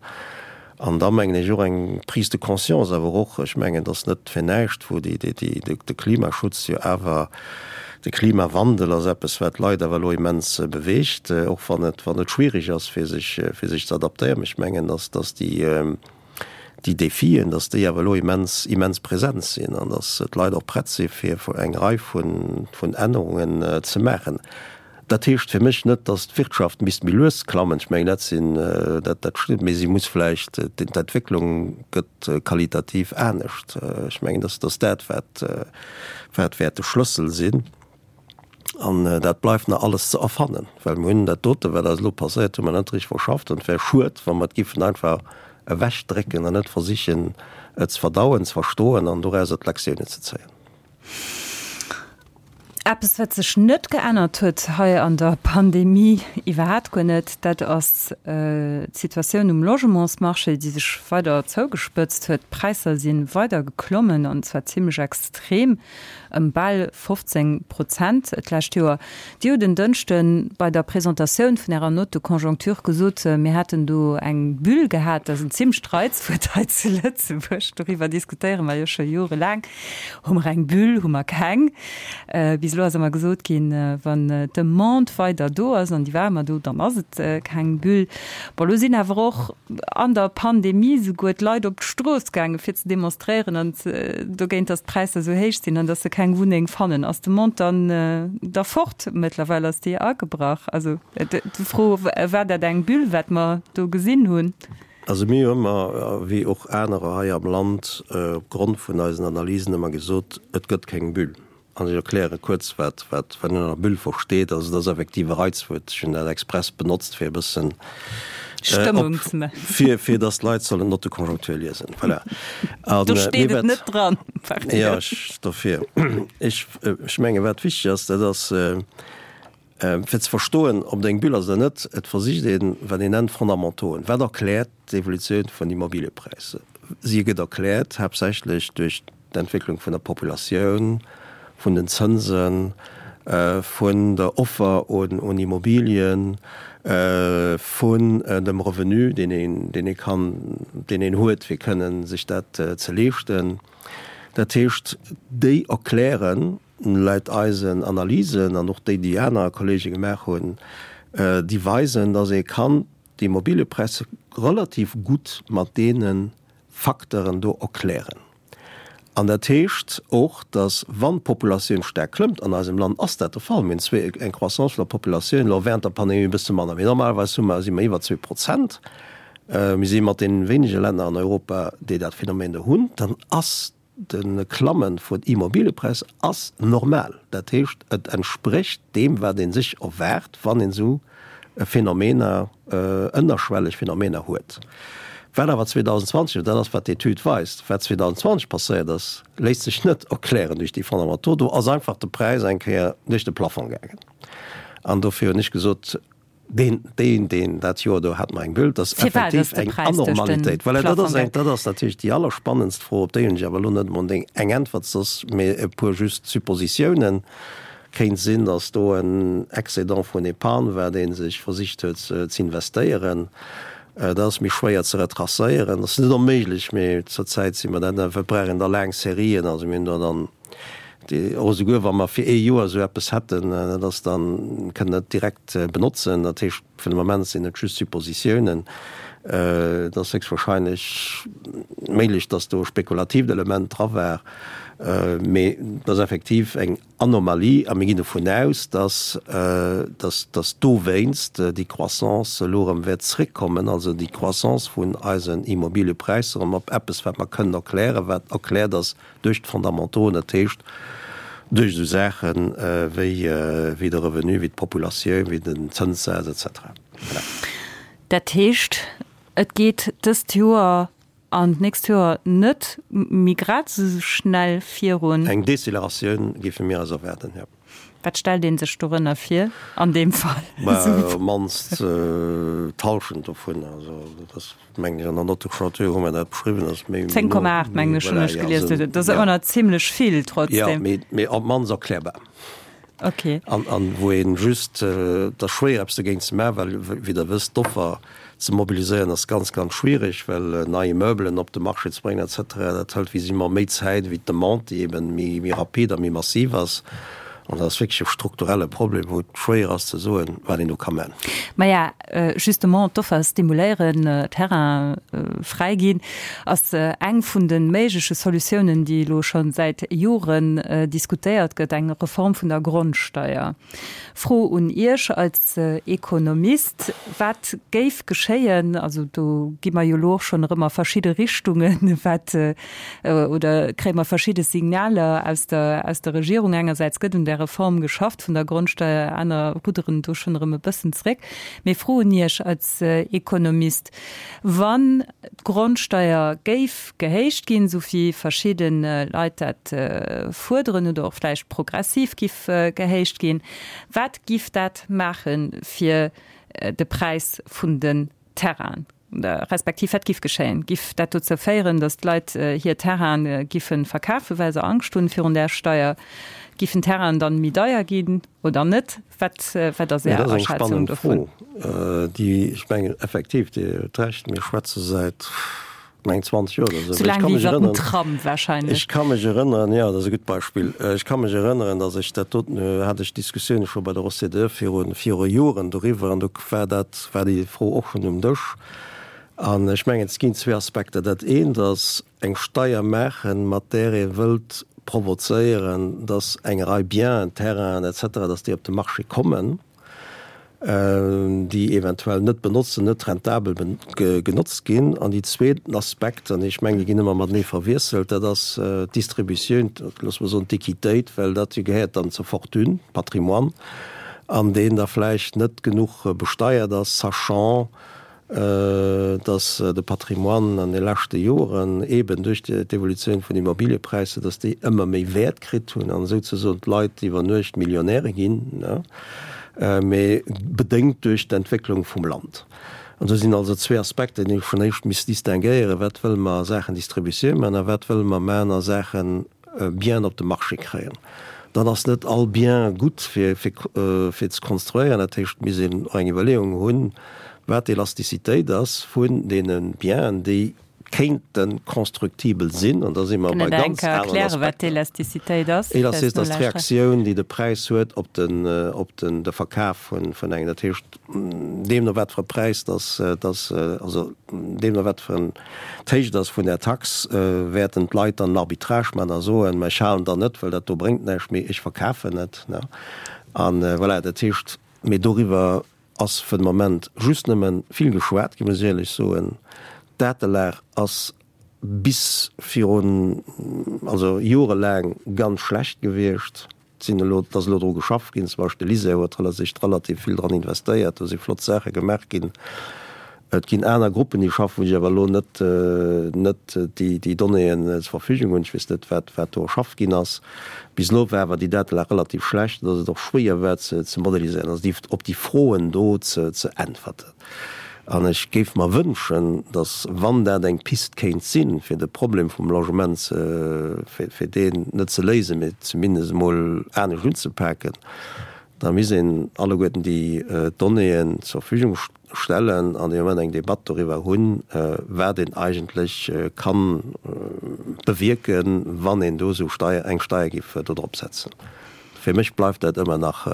An da mengen ech och eng Prise de conscience awer och, ech mengen, et ass net fir näischt, wou déi, déi, déi, de Klimaschutz jo awer, de Klimawandel ass eppes, wat d'Leit awer elo immens beweegt, och wann et, wann et schwierig ass, fir sech, fir sech ze adaptéieren. Mä ech mengen, dass, dass déi, déi Défien, dass déi awer elo immens, immens present sinn an dass d'Leit och prett si fir eng Rei vun, vun Ännerungen ze maachen. Dat heescht fir mech net, datt d'Wirtschaft misst méi lues klammen. Ech mengen, dat sinn, dat, dat stëmmt, mee si muss vläicht, d'Entwécklung gëtt qualitativ anescht. Ech mengen, datt ass dat, wat, wat wäert de Schlëssel sinn. An dat bleift nach alles ze erfannen, well mir hunn dat dote, wat eis elo passéiert, hu mer net richteg verschafft. An et wär schued, wa mer et giffen einfach ewechdrécken an net versichen, et ze verdauen, ze verstoen an dorauser d'Lektiounen ze zéien. Eppes, wat sech net geännert huet hei an der Pandemie, iwwerhaapt guer net, dat ass d'Situatioun um Logementsmarché, déi sech weider zougespëtzt huet. D'Präisser si weider geklommen, an zwar zimmlech extrem, ëm bal 15 Prozent d'lescht Joer. Dir hutt en Dënschde bei der Presentatioun vun Ärer Note de conjoncture gesot, mir hätten do eng Bulle gehat. Dat ass en zimmlecht Reizwuert hei zu Lëtzebuerg, doriwwer diskutéiere mer jo scho jorelaang. Hu mer eng Bulle, hu mer keng? Bis elo ass ëmmer gesot ginn, wann d'Demande weider do ass, an déi war ëmmer do, dann ass et keng Bulle. Bon, elo sinn awer och an der Pandemie souguer d'Leit op d'Strooss gaangen, fir ze demonstréieren an dogéint, datt d'Präisser esou héich sinn an datt se keng Wunneng fannen. Ass d'Demande dann da fort mëttlerweil? Ass déi agebrach? Also d'Fro, War dat eng Bulle, wat mer do gesinn hunn? Also mir hu ëmmer, wéi och anerer hei am Land, op Grond vun eisen Analysen ëmmer gesot, et gëtt keng Bulle. An ech erkläre kuerz, wat wat een ënner Bulle versteet. Also et ass effektiv e Reizwuert, ech hunn dat express benotzt, fir e bëssen Stëmmung ze maachen. Fir, fir datt d'Leit sollen d'Note de conjoncture liesen. Voilà. An, Do steet et net dran. Jo, ech, dofir. Ech, ech menge wat wichteg ass, dat ass, Fir ze verstoen, ob et eng Bulle ass oder net, et versicht een, wat een nennt Fondamentoen. Wat erkläert d'Evolutioun vun Immobiliëpräisser? Si gëtt erkläert haaptsächlech duerch d'Entwécklung vun der Populatioun, vun den Zënsen, vun der Offer un Immobilien, vun dem Revenu, deen een, deen ee kann, deen een huet, fir kënnen sech dat ze leeschten. Dat heescht, déi erklären Laut eisen Analysen an och déi, déi aner Kollege gemaach hunn, déi weisen, dass ee kann d'Immobiliëpräisser relativ gutt mat deene Facteuren do erklären. An dat heescht och, dass wann d'Populatioun staark klëmmt, an eisem Land ass dat de Fall, mir hunn zwee, eng Croissance vun der Populatioun, elo während der Pandemie e bësse manner, mee normalerweis hu mer, si mer iwwer 2%, mir si mat deene wéinege Länner an Europa, déi dat Phänomen do hunn, dann ass De Klamme vun Immobiliëpräisser ass normal. Dat heescht, et entsprécht deem, wat ee sech erwaart, wann een esou Phänomener, ënnerschwelleg Phänomener huet. Wat awer 2020, an dat ass, wat d'Etüd weist, wat 2020 passéiert ass, léisst sech net erklären duerch déi Fondamentaux. Do ass einfach de Präis eng Kéier duerch de Plafong gaangen. An dofir hunn ech gesot, Deen, deen, deen, dat Joer do hat mer eng Bulle, dat ass effektiv eng Anormalitéit. Voilà, dat ass eng, dat ass natierlech déi allerspannendst Fro, op déi hunn ech awer elo net emol eng Äntwert, soss mee e puer just Suppositiounen. Kéint sinn, datt do en Excédent vun Épargne war, dee sech versicht huet z'investéieren. Dat ass méi schwéier ze retracéieren. Dat ass net onméiglech, mee zurzäit si mer dat net. Mir brauchen da laang Serien, also mir hunn do dann Och esouguer wa mer fir ee Joer esou eppes hätten, dat ass dann, kënnen net direkt benotzen. Dat heescht, fir de Moment sinn et just Suppositiounen. Et ass héchstwahrscheinlech méiglech, datt do e spekulatiivt Element dra war, mee et ass effektiv eng Anomalie a mir ginn dovun aus, datt, datt, datt dowéinst déi Croissance elo erëm wäert zréckkommen, also déi Croissance vun eisen Immobiliëpräisser erëm op eppes, wat mer kënnen erklären, wat erkläert ass Duerch d'Fondamentoen, dat heescht duerch esou Saache wéi de Revenu, wéi d'Populatioun, wéi den Zënssaz et cetera. Voilà. Dat heescht, et geet dëst Joer An d'nächst Joer net méi grad esou schnell virun. Eng Deceleratioun géife mir eis erwaarden, jo. Wat stellt ee sech dorënner vir an deem Fall? Mä op d'mannst d'Hallschent dovun. Also dat ass, mengen ech, an der Note de clôture hu mer dat beschriwwen, ass méi. 10,8 mengen ech hunn ech gelies. Dat ass ëmmer nach zimlech vill trotzdem. Jo, mee op d'mannst erklärbar. Okay. An, an wou een just, et ass schwéier eppes dogéint ze maachen, well wéi Der wësst, d'Offer ze mobiliséieren ass ganz, ganz schwierig, well nei Immeubelen op de Marché ze bréngen et cetera, dat hëlt visiblement méi Zäit wéi d'Demande, déi eben méi, méi rapid a méi massiv ass. An dat ass wierklech e strukturelle Problem, wou et schwéier ass ze soen, wat een do ka man. Maja, justement d'Offer stimuléieren, Terrain fräi ginn, ass eng vun de méigleche Solutiounen, déi elo scho säit Joren diskutéiert gëtt, eng Reform vun der Grondsteier. Fro un Iech als Ekonomist, Wat géif geschéien, also do gi mer jo elo och schonn erëm a verschidde Richtungen, wat oder kréie mer verschidde Signaler aus der, aus der Regierung. Engersäits gëtt un där Reform geschafft vun der Grondsteier, aner rudderen do schonn erëm e bëssen zréck. Mee Fro un Iech als Ekonomist, Wann d'Grondsteier géif gehéicht ginn, esou wéi verschidde Leit dat fuerderen, oder och vläicht progressiv giff gehéicht ginn, wat giff dat maache fir de Präis vun den Terrainen? Respektiv wat giff geschéien? Giff dat dozou féieren, datt d'Leit hir Terraine giffe verkafen, well se Angscht hunn virun där Steier? Giffen d'Terrainen dann méi deier ginn oder net? Wat wat ass Är Aschätzung dovun? Dat ass eng spannend Fro, déi, ech mengen effektiv, Dir hutt Recht, mir schwätze säit, mengen 20 Joer oder esou. Sou laang wéi iwwer den Tram wahrscheinlech. Ech ka mech erënneren, jo, dat ass e gutt Beispill. Ech ka mech erënneren, datt ech dat doten, hat ech Diskussioune scho bei der OCDE viru viru Joren doriwwer an do war dat, war déi Fro och schonn um Dësch. An ech mengen, et ginn zwee Aspekter. Dat eent ass eng Steier maachen, mat där ee wëllt provozéieren, datt eng Rei Bienen, Terrainen et cetera, datt déi op de Marché kommen. déi eventuell net benotzen, net rentabel genotzt ginn. An déi zweeten Aspekt, an ech mengen, déi ginn ëmmer matenee verwiesselt, dat ass d'Distributioun, loosse mer soen d'Equitéit, well dat jo gehéiert dann zur Fortune, Patrimoine, an deen da vläicht net genuch besteiert ass, sachant, dass de Patrimoine an de leschte Joren eeben duerch d'Evolutioun vun Immobiliëpräisser, dass déi ëmmer méi Wäert kritt hunn an esouzesoen d'Leit iwwer Nuecht Millionäre ginn, mee bedéngt duerch d'Entwécklung vum Land. An do sinn also zwee Aspekter, déi ee vun éischt misst distinguéieren, Wat wëlle mer a Saachen Distributioun maachen a wat wëlle mer maachen a Saachen Bien op de Marché kréien. Dann ass net all Bien gutt fir fir ze konstruéieren. Dat heescht, et misst een och eng Iwwerleeung hunn, wat d'Elastizitéit ass vun deene Bienen, déi kéinte constructibel sinn. An da si mer bei ganz aneren Aspekter. Wat d'Elastizitéit ass? Elastizität ass d'Reaktioun, déi de Präis huet op den op den de Verkaf vun vun engem. Dat heescht, deemno wat fir e Präis dass dass also deemno wat fir en d'Héicht ass vun där Tax, wäerten d'Leit dann en Arbitrage maachen a soen, mä ech halen dann net, well dat do bréngt näischt, mee ech verkafen et. A voilà, dat heescht, mee doriwwer ass fir de Moment just nëmme vill geschwat ginn, muss ech éierlech soen. D'Datelag ass bis virun, also jorelaang ganz schlecht gewiescht. Et sinn elo, et ass elo dru geschafft ginn, zum Beispill de LISER huet sech relativ vill dran investéiert, do si flott Saache gemaach ginn. Et ginn aner Gruppen, déi schaffen, wou ech awer elo net, net déi, déi Donnéeën zur Verfügung hunn. Ech weess net, wat, wat do erschafft ginn ass. Bis elo war awer déi Datelag relativ schlecht, dass et och schwéier war ze, ze modeliséieren, also déi, op déi Froen do ze, ze äntwerten. An ech géif mer wënschen, datt, wann dat eng Pist kéint sinn, fir de Problem vum Logement ze, fir, fir deen net ze léisen, mee zumindest emol anescht unzepaken, da misst een alleguerten déi Donnéeën zur Verfügung stellen an dee Moment eng Debatt doriwwer hunn, wat een eigentlech ka bewierken, wann een do esou Steier, eng Steier géif do drop setzen. Fir mech bleift dat ëmmer nach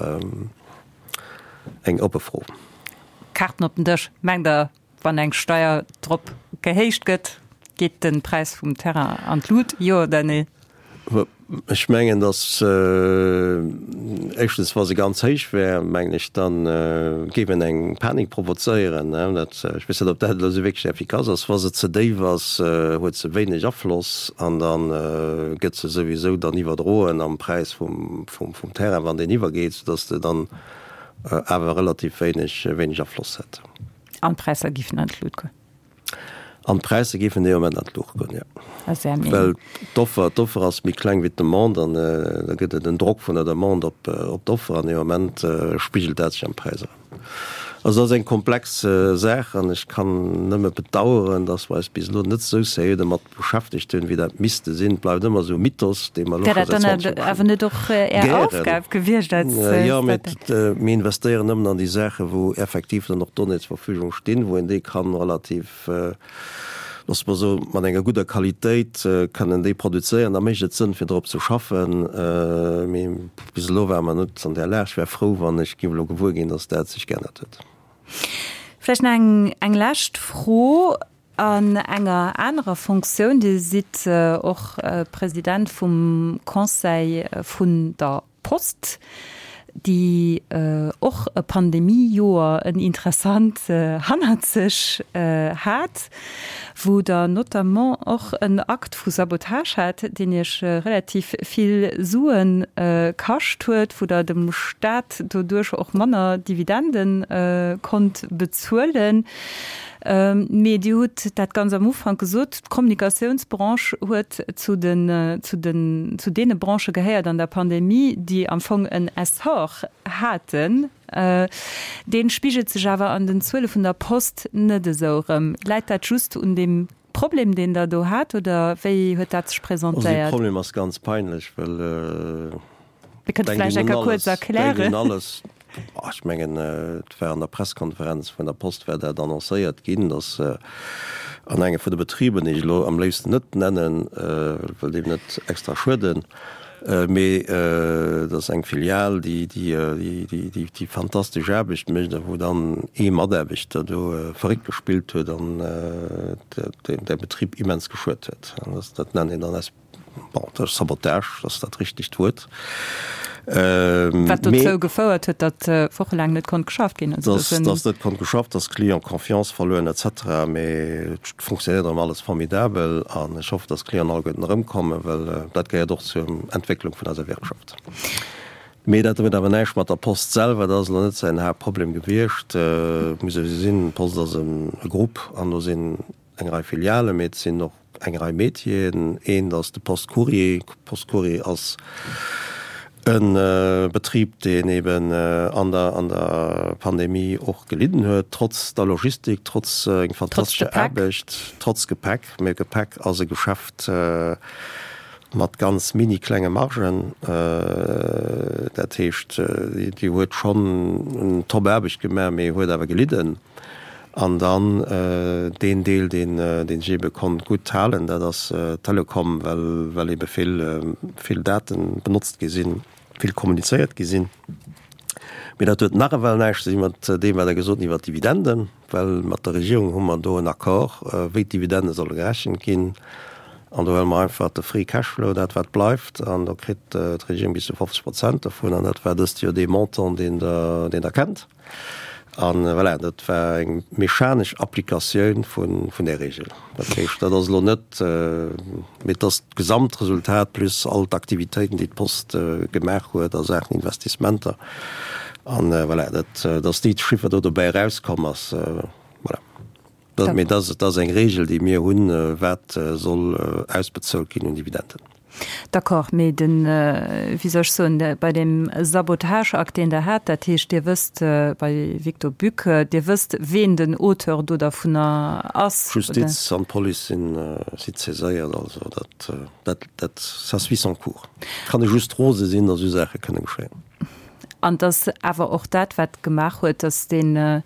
eng oppe Fro. Kaarten op den Dësch, Mengt Der, wann eng Steier drop gehéicht gëtt, geet de Präis vum Terrain an d'Lut, jo oder nee? Ech mengen, datt éischtens, wa se ganz héich wär, mengen ech, da géif een eng Panik provozéieren. Dat, ech weess net, ob dat elo esou wierklech effikass ass. Wa se ze déif ass, huet se wéineg Afloss an da gëtt se souwisou dann iwwerdroen am Präis vum Terrain, wann deen iwwergeet, soudatt de dann awer relativ wéineg, wéineg Afloss hätt. An d'Präisser giffen an d'Lut goen? An d'Präisser géifen dee Moment an d'Luucht goen, jo. Well d'Offer, d'Offer ass méi kleng wéi d'Demande an da gëtt et en Drock vun der Demande op, op d'Offer an dee Moment spigelt dat sech am Präis erëm. Also dat ass eng komplex Saach an ech kann nëmme bedauern, dass mer eis bis elo net esou seriö domat beschäftegt hunn, wéi dat misste sinn. Et bleift ëmmer esou e Mythos, dee mer elo scho säit 20 Joer. Wär dat dann awer net och Är Aufgab gewiescht als Statec? Jo, mee mir investéieren nëmmen an déi Saachen, wou effektiv dann och Donnéeën zur Verfügung stinn, wou een déi kann relativ, loosse mer soen, mat enger gudder Qualitéit kënnen déi produzéieren, da mécht et Sënn, fir drop ze schaffen. Mee bis elo ware mer net an där Lag. Ech wär frou, wann ech géif elo gewuer ginn, datt dat sech geännert huet. Vläicht nach eng, eng lescht Fro an enger anerer Fonctioun. Dir sidd och President vum Conseil vun der Post, déi och e Pandemiejoer, en interessant hannert sech hat, wou Der notamment och en Akt vu Sabotage hat, deen Iech relativ vill Sue kascht huet, wou Der dem Staat doduerch och manner Dividende konnt bezuelen. Mee Dir hutt dat ganz am Ufank gesot, d'Kommunikatiounsbranche huet zu den, zu den, zu deene Branchë gehéiert an der Pandemie, déi am Fong en Essor haten. Dee spigelt sech awer an den Zuele vun der Post net esou erëm. Läit dat just un deem Problem, deen Der do hat, oder wéi huet dat sech presentéiert? Also dee Problem ass ganz peinlech, well Dir kënnt vläicht eng Kéier kuerz erklären. Denkt un alles. Ech mengen, et war an der Presskonferenz vun der Post war dat annoncéiert ginn, datt an engem vun de Betriber, déi ech elo am léifsten net nennen, wëll deem net extra schueden, mee dat ass eng Filial, déi déi fantastesch Aarbecht mécht a wou dann ee Mataarbechter do verréckt gespillt huet an de Betrib immens geschuet huet. An dat nennt een dann Bon, dat ass Sabotage, dat ass dat richtegt Wuert. Wat dozou gefouert huet, datt wochelaang net konnt geschafft ginn. Datt net konnt geschafft, datt d'Clienten Confiance verluer hunn et cetera. Mee et funktionéiert erëm alles formidabel an ech hoffen, datt d'Clienten alleguerten erëmkommen, well dat gehéiert och zur Entwécklung vun eiser Wirtschaft. Mee dat huet awer näischt mat der Post selwer, dat ass elo net säin Haaptproblem gewiescht. Et muss ee gesinn, d'Post ass e Grupp an do sinn eng Rei Filialen, mee et sinn och eng Rei Métieren. Eent ass de Post Courrier. Post Courrier ass e Betrib, deen eben an der, an der Pandemie och gelidden huet, trotz der Logistik, trotz eng fantastescher Aarbecht, trotz Gepäck. Mee Gepäck ass e Geschäft mat ganz mini klenge Margen. Dat heescht, déi huet schonn en top Aarbecht gemaach, mee huet awer gelidden. An dann deen Deel, deen sech eebe konnt gutt halen, dat ass d'Telekom, well well eebe vill, vill Date benotzt gi sinn, vill kommunizéiert gi sinn. Mee dat huet nach ewell näischt ze di mat deem, wat Der gesot hutt iwwer d'Dividenden, well mat der Regierung hu mer do en Accord, wéi d'Dividende solle gerechent ginn. An do huele mer einfach de Free Cash Flow, dat wat bleift, an do kritt d'Regierung bis zu 50 Prozent dovun. An dat war dëst Joer dee Montant, deen Der, deen Der kennt. An voilà, dat war eng mechanesch Applikatioun vun där Regel. Dat heescht, dat ass elo net, mee et ass d'Gesamtresultat plus all d'Aktivitéiten, déi d'Post gemaach huet a Saachen Investissementer. An voilà, dat, dass déi Chiffer do dobäi erauskomm ass, voilà. Dat, mee dat, dat ass eng Regel, déi mir hunn, wat soll ausbezuelt ginn un Dividenden. D'accord, mee den, wéi soll ech soen, bei deem Sabotageakt, deen Der hat, dat heescht, Dir wësst, bei Victor Buc, Dir wësst, ween den Auteur do dervunner ass, oder? D'Justiz an d'Police sinn, si saiséiert, also dat, dat, dat, ça suit son cours. Kann ee just rose sinn, datt esou Saache kënne geschéien. An et ass awer och dat, wat gemaach huet, datt deen,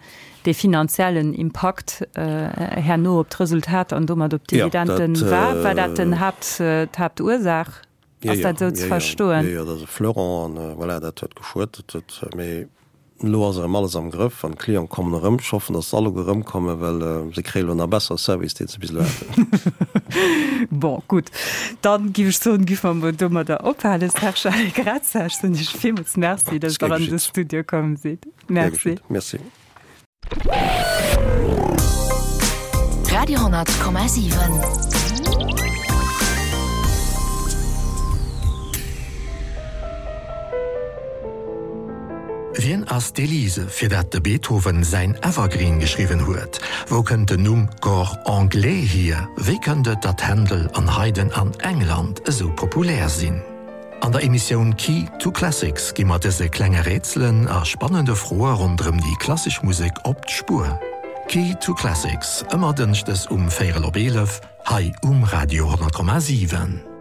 dee finanziellen Impakt herno op d'Resultat an domat op d'Dividenden war. War dat den Haapt, d'Haaptursaach? Ass dat esou ze verstoen? Jo, jo, dat ass e Fleuron an voilà, dat huet geschuet. Dat huet, mee elo ass erëm alles am Grëff an d'Clienten kommen erëm. Ech hoffen, datt se alleguer erëmkommen, well se kréie elo nach bessere Service, deen se bis elo haten. Bon, gutt, dann giff ech soen, giff mer mol domadder ophalen. Serge Allegrezza, ech soen Iech villmools Merci, datt Der an de Studio komm sidd. Merci. Merci. Radio 10,7. Wien ass d'Elise, fir dat de Beethoven säin Evergreen geschriwwen huet? Wou kënnt den Numm Cor anglais hier? Wéi kënnt et, datt Händel an Haydn an England esou populär sinn? An der Emissioun Key to Classics gi mer dëse klenge Rätselen a spannende Froe ronderëm déi klassesch Musek op d'Spuer. Key to Classics, ëmmer dënschdes um véierel op 11 hei um Radio 10,7.